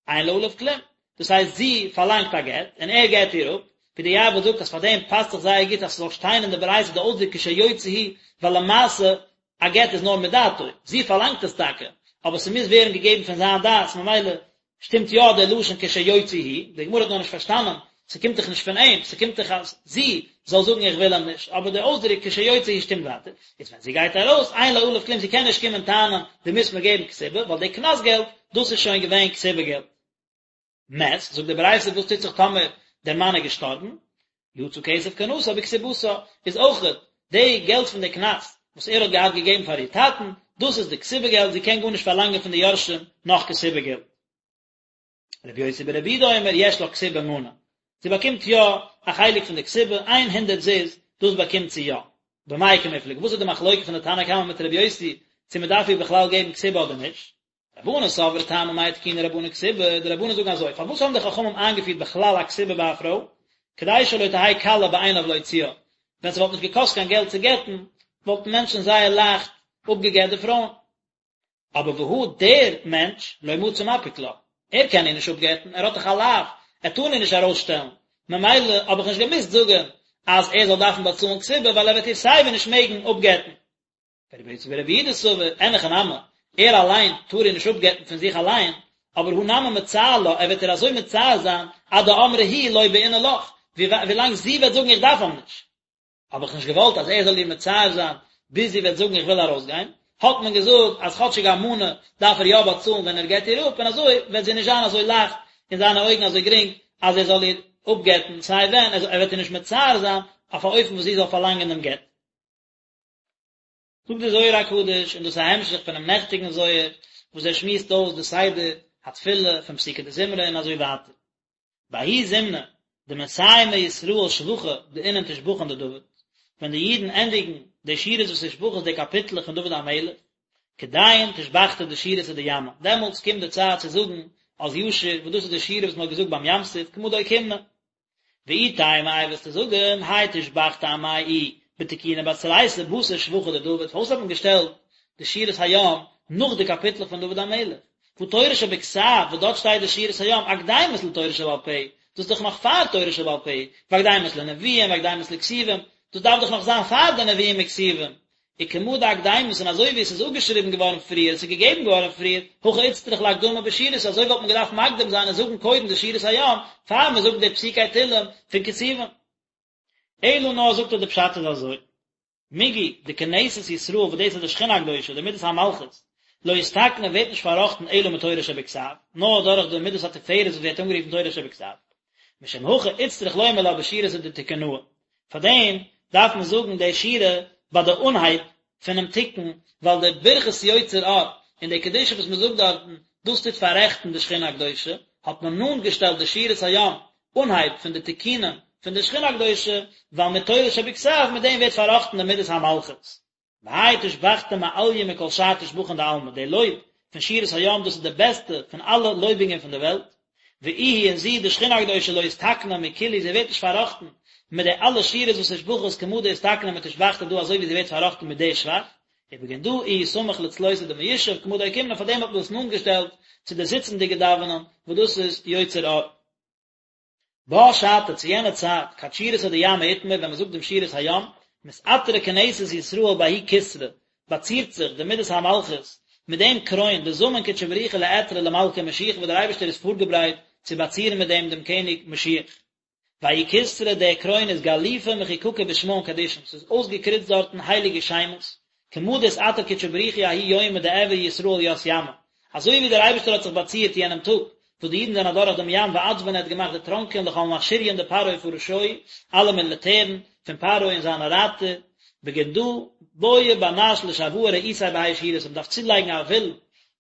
אין לה עליו כלום, דאס הייסט זי פארלאנגט א גט און ער גט איר אפ, ווי די יעב"ץ זאגט אז פאר דעם פאסט זיך זייער גוט אז ס'זאל שטיין אין די ברייתא די אויסדרוק כשיוציא הוא, ווייל למעשה א גט איז נאר מדעתו, זי פארלאנגט עס טאקע, אבער ס'מוז ווערן געגעבן פון זיין דעת, ממילא שטימט יא דער לשון כשיוציא הוא, די גמרא האט נאר נישט פארשטאנען, ס'קומט דאך נישט פון אים, ס'קומט דאך אז זי זאל זאגן איך וויל אים נישט, אבער דער אויסדרוק כשיוציא הוא שטימט ווייטער, איז ווען זי גייט ארויס, אין לה עליו כלום, זי קען נישט קומען טענה'ן דו מוזט מיר געבן כתובה, ווייל די קנס געלט, דאס איז שוין געווען כתובה געלט. מת, זאגט די ברייתא וואס טוט זיך טאמער דער מאן איז געשטארבן, יצא כסף קנסה בכתובתה, איז אויכעט די געלט פון די קנס וואס ער האט געהאט געגעבן פאר איר טאטן, דאס איז די כתובה געלט, זי קען גארנישט פארלאנגען פון די יורשים נאך כתובה געלט. רבי יוסי ברבי יהודה אומר יש לה כתובה מנה, זי באקומט יא א חלק פון די כתובה, איין הונדרעט זוז, דאס באקומט זי יא. במאי קמיפלגי, וואס איז די מחלוקה פון די תנא קמא מיט רבי יוסי, צו מען דארף איר בכלל געבן כתובה אדער נישט? רבנן סברי טעמא מאי תקינו רבנן כתובה, די רבנן זאגן אזוי, פארוואס האבן די חכמים איינגעפירט בכלל א כתובה ביי א פרוי? כדי שלא תהא קלה בעיניו להוציאה, ווען ס'וואלט נישט געקאסט קיין געלט צו גט'ן, וואלטן מענטשן זייער לייכט אפגעגט די פרויען. אבער והא דער מענטש לא מצי מפיק לה, ער קען איר נישט אפגט'ן, ער האט דאך א לאו, ער טאר איר נישט ארויסשטעלן, ממילא האב איך נישט געמוזט זאגן אז ער זאל דארפן באצאלן כתובה ווייל ער וועט איר סייווי נישט מעגן אפגט'ן. ורבי יוסי ברבי יהודה סבר, אין הכי נמי, ער אליין טאר איר נישט אפגט'ן פון זיך אליין, אבער הא נמי מצער לה, ער וועט איר אזוי מצער זיין, עד דאמרה היא לא בעינא לך, ווילאנג זי וועט זאגן איך דארף אים נישט. האב איך נישט געוואלט אז ער זאל איר מצער זיין ביז זי וועט זאגן איך וויל ארויסגיין, האט מען געזאגט אז כאטשיג א מנה דארף ער יא באצאלן ווען ער גט איר אפ, און אזוי וועט זי נישט זיין אזוי לייכט אין זיינע אויגן אזוי גרינג אז ער זאל איר אפגט'ן סיי ווען, ער וועט איר נישט מצער זיין אויף א אופן וואס זי זאל פארלאנגען דעם גט. זאגט דער זוהר הקדוש, און דאס איז א המשך פונעם נעכטיגן זוהר, וואס ער שמועסט אויס די סדר התפילה פון פסוקי דזמרה און אזוי ווייטער. בההוא זמנא דמסיימי ישראל שבחא דאינון תושבחין דדוד, ווען די אידן ענדיגן די שירות ותשבחות די קאפיטלעך פון דוד המלך, כדאין תושבחתא דשירתא דימא, דעמאלטס קומט די צייט צו זאגן אז ישיר, וואס דאס איז די שירה וואס מען האט געזאגט ביים ים סוף, כמה דאוקימנא. ואי תימא איי וועסטו זאגן, האי תושבחתא אמאי איהי בתקונא בתרייתא בתר שבחא דדוד, פארוואס האט מען געשטעלט די שירת הים נאך די קאפיטלעך פון דוד המלך? והא תורה שבכתב וואס דארט שטייט די שירת הים אקדימות לתורה שבעל פה, דאס איז דאך נאך פאר תורה שבעל פה, ואקדימות לנביאים ואקדימות לכתובים, דאס דארף דאך נאך זיין פאר די נביאים וכתובים, וכמה דאקדימות און אזוי ווי עס איז אפגעשריבן געווארן פריער, עס איז געגעבן געווארן פריער, הכי איצטריך לאקדמא בשירתא, אזוי וואלט מען געדארפט מקדים זיין און זאגן קודם די שירת הים, פאר מען זאגט די פסוקי תהלים פון כתובים. אלא נאר זאגט ער די פשט איז אזוי, מיגו דכנסת ישראל וואס דאס איז די שכינה הקדושה, די מידת המלכות, לא אתתקנא ווערט נישט פארראכטן אלא מתורה שבכתב, נאר דורך די מידת התפארת וואס ווערט אנגערופן תורה שבכתב. משום הכי איצטריך לומר לה בשירתא דתקונהא, פאר דעם דארף מען זאגן די שירה ביי די אנהייב פונעם תיקון, ווייל די ברכת יוצר אור און די קדושה וואס מען זאגט דארטן, דאס טוט פאררעכטן די שכינה הקדושה, האט מען נאנט געשטעלט די שירת הים אנהייב פון די תיקונים פון די שכינה הקדושה, ווייל מיט תורה שבכתב מיט דעם ווערט פארראכטן די מידת המלכות. והאי תושבחתא מעליא מכל שאר תושבחין דעלמא, די לויב פון שירת הים דאס איז די בעסטע פון אלע לויבונגען פון די וועלט, ואיהי און זי די שכינה הקדושה לא אתתקנא מכולהו זי ווערט נישט פארראכטן מיט די אלע שירות ותשבחות כמה דאתתקנא מתושבחתא דא אזוי ווי זי ווערט פארראכטן מיט די שבח, ובגין דא איהו סמיך לצלותא דמיושב כמה דאוקימנא פאר דעם האט מען דאס נאנט געשטעלט צו די זיצנדיגע דאווענען וואס דאס איז יוצר אור. בה שעתא צו יענע צייט, כד שירתא דימא אתמר ווען מען זאגט דעם שירת הים, מתעטרא כנסת ישראל בההוא כתרא, באצירט זיך די מידת המלכות מיט דעם קרוין, דזמין קודשא בריך הוא לאעטרא למלכא משיחא וואס דער אייבערשטער איז פארגעברייט צו באצירן מיט דעם דעם קעניג משיח. וההוא כתרא דער קרוין איז גליפא מחוקקא בשמהון קדישין, ס'איז אויסגעקריצט דארטן הייליגע שמות, כמה דאתעטר קודשא בריך הוא ההוא יומא דאעברי ישראל ית ימא. אזוי ווי דער אייבערשטער האט זיך באצירט יענעם טאג וואס די אידן זענען אדורך דעם ים ואצבן ער האט געמאכט דערטראנקען לכל מכשיריין דפרעה ופרשוהי, אלע מיליטערן פון פרעה און זיינע רייטער, בגין דא בעי בר נש לשואה רעותיה בהאי שירתא, מען דארף צולייגן א ווילן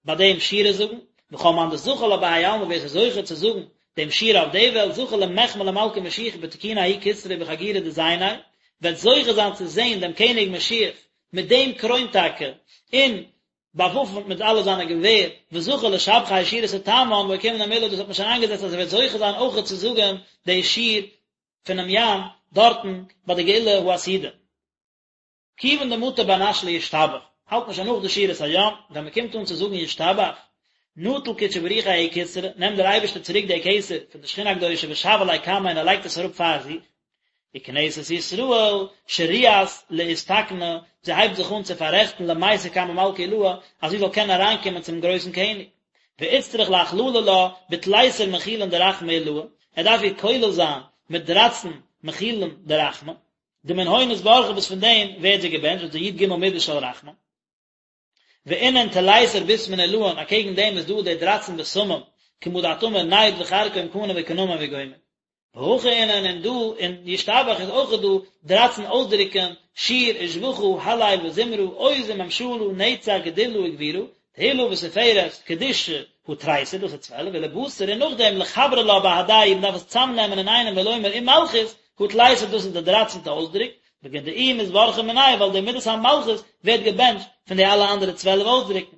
ביי דעם שירה זאגן, וכל מאן דזכי לה בהאי עלמא ווער ס'איז זוכה צו זאגן דעם שירה אויף די וועלט זכי למחמי למלכא משיחא בתקונא ההוא כתרא ובחגורא דזייניה, וועט זוכה זיין צו זען דעם קעניג משיח מיט דעם קרוין טאקע, און באוואפנט מיט אלע זיינע געווער, וזכי לשבחא האי שירתא תמן ואוקימנא מלה, דאס האט מען שוין איינגעזעצט אז ער וועט זוכה זיין אויכעט צו זאגן די שיר פונעם ים דארטן ביי די גאולה העתידה. כיוון דמטא בר נש לישתבח, האלט מען שוין נאך די שירת הים, ווען מען קומט אן צו זאגן ישתבח, נטל קודשא בריך הוא ההוא כתרא, נעמט דער אייבערשטער צוריק די כתר פון די שכינה הקדושה ושוי ליה קמיה און ער לייגט עס אראפ פאר זיך, וכנסת ישראל שריאת לאתתקנא, זי הייבט זיך אן צו פאררעכטן למיתי קמי מלכא עילאה, אז זי זאל קענען אריינקומען צום גרויסן קעניג. ואיצטריך לאכללא לה בתליסר מכילין דרחמי עילאה, ער דארף איר כולל זיין מיט דרייצן מכילין דרחמי, דמנהון אתברכא וואס פון דעם ווערט זי געבענטשט, דאס איז די י"ג מידות של רחמים. ואינון תליסר בשמין עילאין, אקעגן דעם איז דא די דרייצן בשמים, כמה דאת אמר נד וכרכום קנה וקנמון וגומר. והכא אינון און דא אין ישתבח איז אויך דא דרייצן אויסדרוקן, שיר ושבחא הלל וזמרה עוז וממשלה נצח גדולה וגבורה, תהלה ותפארת, קדושה, הא תריסר, דאס איז 12, ולבתר און נאכדעם לחברא לה בהדייהו, מען דארף עס צאמנעמען אינאיינעם ולומר ומלכות, הא תליסר דאס איז די דרייצנטע אויסדרוק, בגין דאיהי מתברכא מינייהו ווייל די מידת המלכות ווערט געבענטשט פון די אלע אנדערע 12 אויסדרוקן.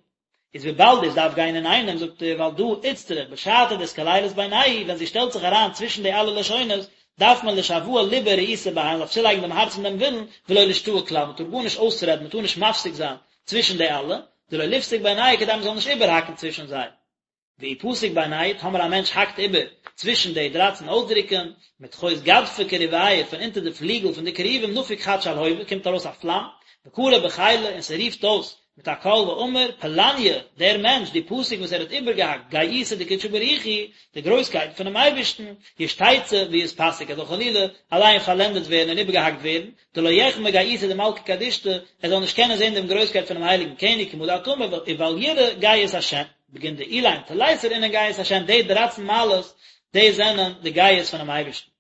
איז וויבאלד דאס דארף גיין אינאיינעם זאגט ער ועל דא איצטריך בשעתא דאתכלילת בינייהו ווען זי שטעלט זיך אריין צווישן די אלע לשונות דארף מען לשואה ליבא ורעותא בהאי מען דארף צולייגן דעם הארץ און דעם ווילן ולא לאשתעי כלל מען טאר גארנישט אויסרעדן מען טאר נישט מפסיק זיין צווישן די אלע דלא ליפסוק בינייהו כדי מען זאל נישט איבערהאקן צווישן זיי. ואי פסיק בינייהו, טאמער א מענטש האקט איבער צווישן די דרייצן אויסדרוקן, מתחות גדפי כרוביא פון אונטער די פליגל פון די כרובים נפיק חד שלהובא קומט ארויס א פלאם, וקרי בחילא און ס'רופט אויס מיט א קול ואמר, פלניא, דער מענטש, דפסיק וואס ער האט איבערגעהאקט גאותא דקודשא בריך הוא, די גרויסקייט פונעם אייבערשטן, ישתיצא ויתפסק, ער זאל חלילה אליין פארלענדעט ווערן און איבערגעהאקט ווערן, דלא יחמי גאותא דמלכא קדישתא, ער זאל נישט קענען זען דעם גרויסקייט פונעם הייליגן קעניג כמה דאת אמר ובל יראה גאות השם. בגין דאלין תליסר אינון גאות השם, די דרייצן מעלות, די זענען די גאות פונעם אייבערשטן.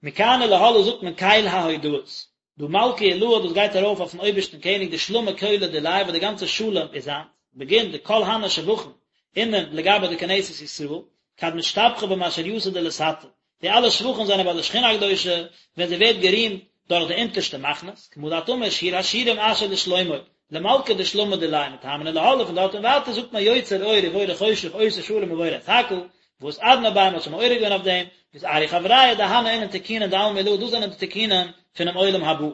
מכאן ולהלאה זאגט מען קל ההודאות. דא מלכא עילאה דאס גייט ארויף אויפן אויבערשטן קעניג דשלמא כולא דיליה וואס די גאנצע שלום איז זיינס, בגין דכל הני שבחין אינון לגבי די כנסת ישראל, כד משתבחא במשריתא דלתתא, די אלע שבחים זענען ביי די שכינה הקדושה ווען זי ווערט גערימט דורך די אונטערשטע מחנות, כמה דאת אמר שיר השירים אשר לשלמה, למלכא דשלמא דיליה מתמן ולהלאה פון דארט און ווייטער זאגט מען יוצר אור ובורא חושך עושה שלום ובורא את הכל, ואתערנא ביה מ'האט שוין מעורר געווען אויף דעם, ואתערו חברייא דהני אינון תיקונין דעלמא עילאה דאס זענען די תיקונים פונעם עולם הבא.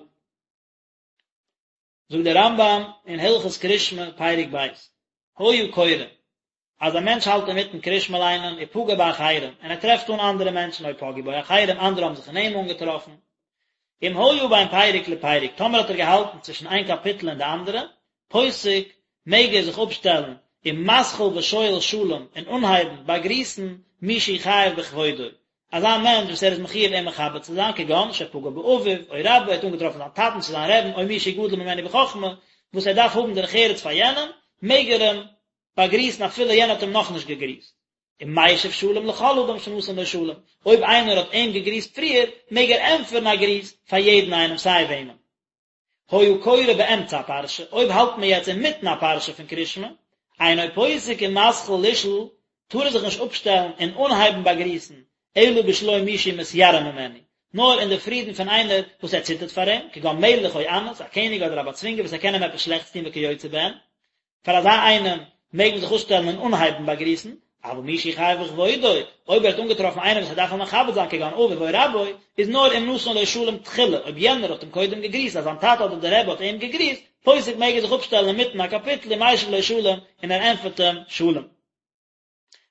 זאגט דער רמב"ם אין הלכות קרישמע פרק ב', היה קורא, אז א מענטש האלט אינמיטן קרישמע ליינען ופגע באחרים, און ער טרעפט אן אנדערע מענטשן או פגעו בו אחרים, אנדערע האבן זיך אין אים אנגעטראפן, אם היה בין פרק לפרק, טאמער האט ער געהאלטן צווישן איין קאפיטל און די אנדערע, פוסק, מעג ער זיך אפשטעלן, ומתחיל ושואל שלום, און אנהייבן באגריסן מי שהוא חייב בכבודו, אזא מענטש וואס ער איז מחויב אים מכבד צו זיין, כגון שפגע באביו, או רבו, ער האט אנגעטראפן זיין טאטן צו זיין רעבן, או מי שהוא גדול ממנו בחכמה, וואס ער דארף האבן דרך ארץ פאר יענעם, מעג ער אים באגריסן אפילו יענער האט אים נאכנישט געגריסט. ומשיב שלום לכל אדם שנתן לו שלום, אויב איינער האט אים געגריסט פריער, מעג ער ענטפערן א גריס פאר יעדן איינעם סיי וועמען. היה קורא באמצע הפרשה, אויב האלט מען יעצט אינמיטן א פרשה פון קרישמע, אינו פוסק ומתחיל לשאול, טאר ער זיך נישט אפשטעלן און אנהייבן באגריסן, אלא בשלום מי שמתיירא ממנו, נאר אין די פרידן פון איינער וואס ער ציטערט פאר אים, כגון מלך או אנס, א קעניג אדער א באצווינגער וואס ער קען אים עפעס שלעכטס טון וכיוצא בהן. פאר אזא איינעם מעג מען זיך אפשטעלן און אנהייבן באגריסן, אבל מי שהוא חייב בכבודו, אויב ער האט אנגעטראפן איינעם וואס ער דארף אים מכבד זיין כגון אביו או רבו, איז נאר אם נתן לו שלום תחילה, אויב יענער האט אים קודם געגריסט, אז זיין טאטע אדער דער רבי האט אים געגריסט, פוסק מעג ער זיך אפשטעלן אינמיטן א קאפיטל ומשיב לו שלום, און ער ענטפערט אים שלום.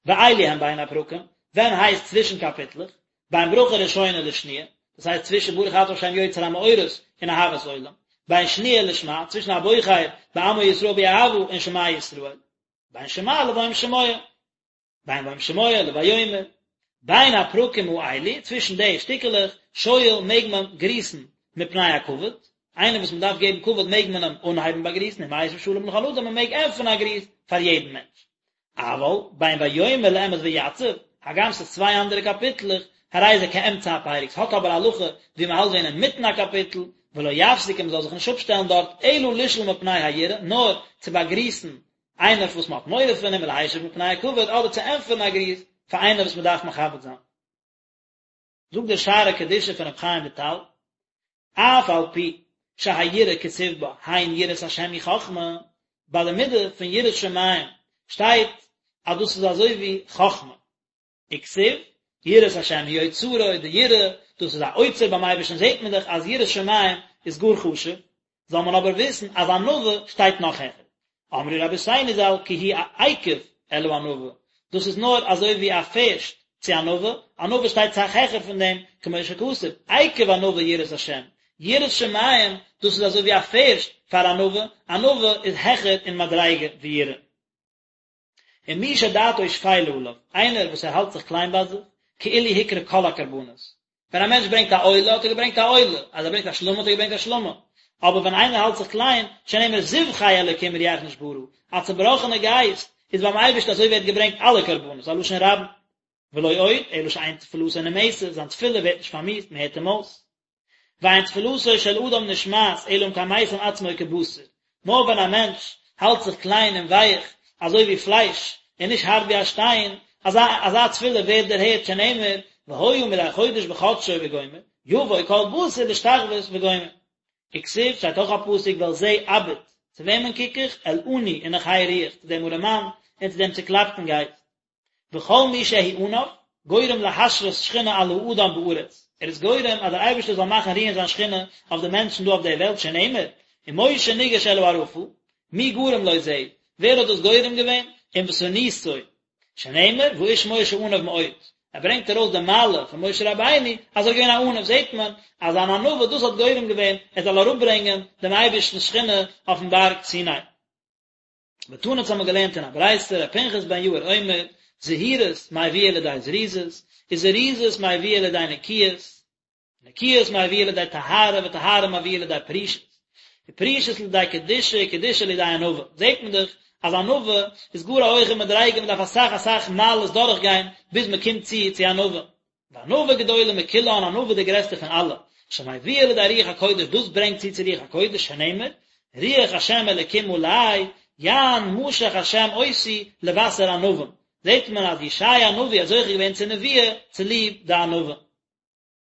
ואלו הן בין הפרקים, ווען הייסט צווישן קאפיטלעך? בין ברכה ראשונה לשניה, דאס הייסט צווישן ברוך אתה ה' יוצר המאורות און אהבת עולם, בין שניה לשמע, צווישן הבוחר בעמו ישראל באהבה און שמע ישראל, בין שמע לוים שמוע, בין וים שמוע לויאמר, בין הפרקים האלו, צווישן די שטיקעלעך, שואל מעג מען גריסן מפני הכבוד, איינער וואס מען דארף געבן כבוד מעג מען אים אנהייבן באגריסן, ומשיב שלום לכל אדם, מען מעג ענטפערן א גריס פאר יעדן מענטש. אבל בין ויאמר לאמת ויצב, הגם ס'איז צוויי אנדערע קאפיטלעך, הרי זה כאמצע הפרק, ס'האט אבער א הלכה ווי מ'האלט ווען אינמיטן א קאפיטל, ולא יפסיק און מ'זאל זיך נישט אפשטעלן דארט, אלא לשאול מפני היראה, נאר צו באגריסן איינער וואס מ'האט מורא פון אים ולהשיב מפני הכבוד, אדער צו ענטפערן א גריס פאר איינער וואס מ'דארף מכבד זיין. זאגט דער שערי קדושה פון רבי חיים וויטאל, אף על פי שהיראה כתיב בה, הן יראת השם היא חכמה, ביי די מידה פון יראת שמים שטייט אז דאס איז אזוי ווי חכמה, וכתיב, יראת השם היא אוצרו, די יראה, דאס איז א אוצר ביים אייבערשטן זעט מען דאך אז יראת שמים איז גאר חשוב, זאל מען אבער וויסן אז ענווה שטייט נאך העכער. אמרו רבותינו ז"ל כי הוא עקב אל הענווה, דאס איז נאר אזוי ווי א פערשט צו ענווה, ענווה שטייט סאך העכער פון דעם, כמו שכתוב, עקב ענווה יראת השם, יראת שמים, דאס איז אזוי ווי א פערשט פאר ענווה, ענווה איז העכער אין מדריגה ווי יראה. ומי שדעתו שפלה עליו, איינער וואס ער האלט זיך קליין ביי זיך, כאילו הקריב כל הקרבנות. ווען א מענטש ברענגט א עולה האט ער געברענגט א עולה, אז ער ברענגט א שלמים האט ער געברענגט א שלמים. אבער ווען איינער האלט זיך קליין, שנאמר זבחי אלוקים רוח נשברה, א צובראכענע גייסט איז ביים אייבערשטן אזוי ווי ער האט געברענגט אלע קרבנות, א לשון רבים. ולא עוד, אלא שאין תפלתו נמאסת, זיין תפילה ווערט נישט פארמיאוסט, מען הערט אים אויס. ואין תפלתו של אדם נשמעת אלא אם כן משים עצמו כבשר, נאר ווען א מענטש האלט זיך קליין און ווייך אזוי ווי פלייש און נישט הארט ווי א שטיין, אזא אזא תפילה ווערט דערהערט שנאמר והיה מדי חודש בחדשו וגומר, יבוא כל בשר להשתחוות וגומר. וכתיב שטייט אויך א פסוק ואל זה אביט, צו וועמען קוק איך? אל עני ונכה רוח, צו דעם ארעמאן און צו דעם צוקלאפטן גייסט. וכל מי שהוא עניו, גורם להשרות שכינה על האדם בארץ, ער איז גורם אז דער אייבערשטער זאל מאכן רוען זיין שכינה אויף די מענטשן דא אויף דער וועלט שנאמר, ומשה ניגש אל הערפל, מי גרם לו זה, ווער האט דאס גורם געווען, ענוותנותו, שנאמר, והאיש משה עניו מאוד, ער ברענגט ארויס די מעלה פון משה רבינו אז ער איז געווען א עניו, זעט מען אז זיין ענווה דאס האט גורם געווען ער זאל אראפברענגען דעם אייבערשטנ'ס שכינה אויפן בארג סיני. ותנא אונז האבן מיר געלערנט אין א ברייתא, ר' פנחס בן יאיר אומר, זהירות מביאה לידי זריזות, וזריזות מביאה לידי נקיות, נקיות מביאה לידי טהרה, וטהרה מביאה לידי פרישות, ופרישות לידי קדושה, וקדושה לידי ענווה. זעט מען דאך אז ענווה איז גאר א הויכע מדריגה, מען דארף אסאך אסאך מעלות דורכגיין ביז מען קומט צו צו ענווה. וענווה גדולה מכולן, ענווה די גרעסטע פון אלע, שמביאה לידי רוח הקודש, דאס ברענגט צו צו רוח הקודש, שנאמר, רוח השם אלוקים עלי, יען משח השם אותי לבשר ענווים, זעט מען אז ישעיה הנביא האט זוכה געווען צו נבואה צוליב די ענווה.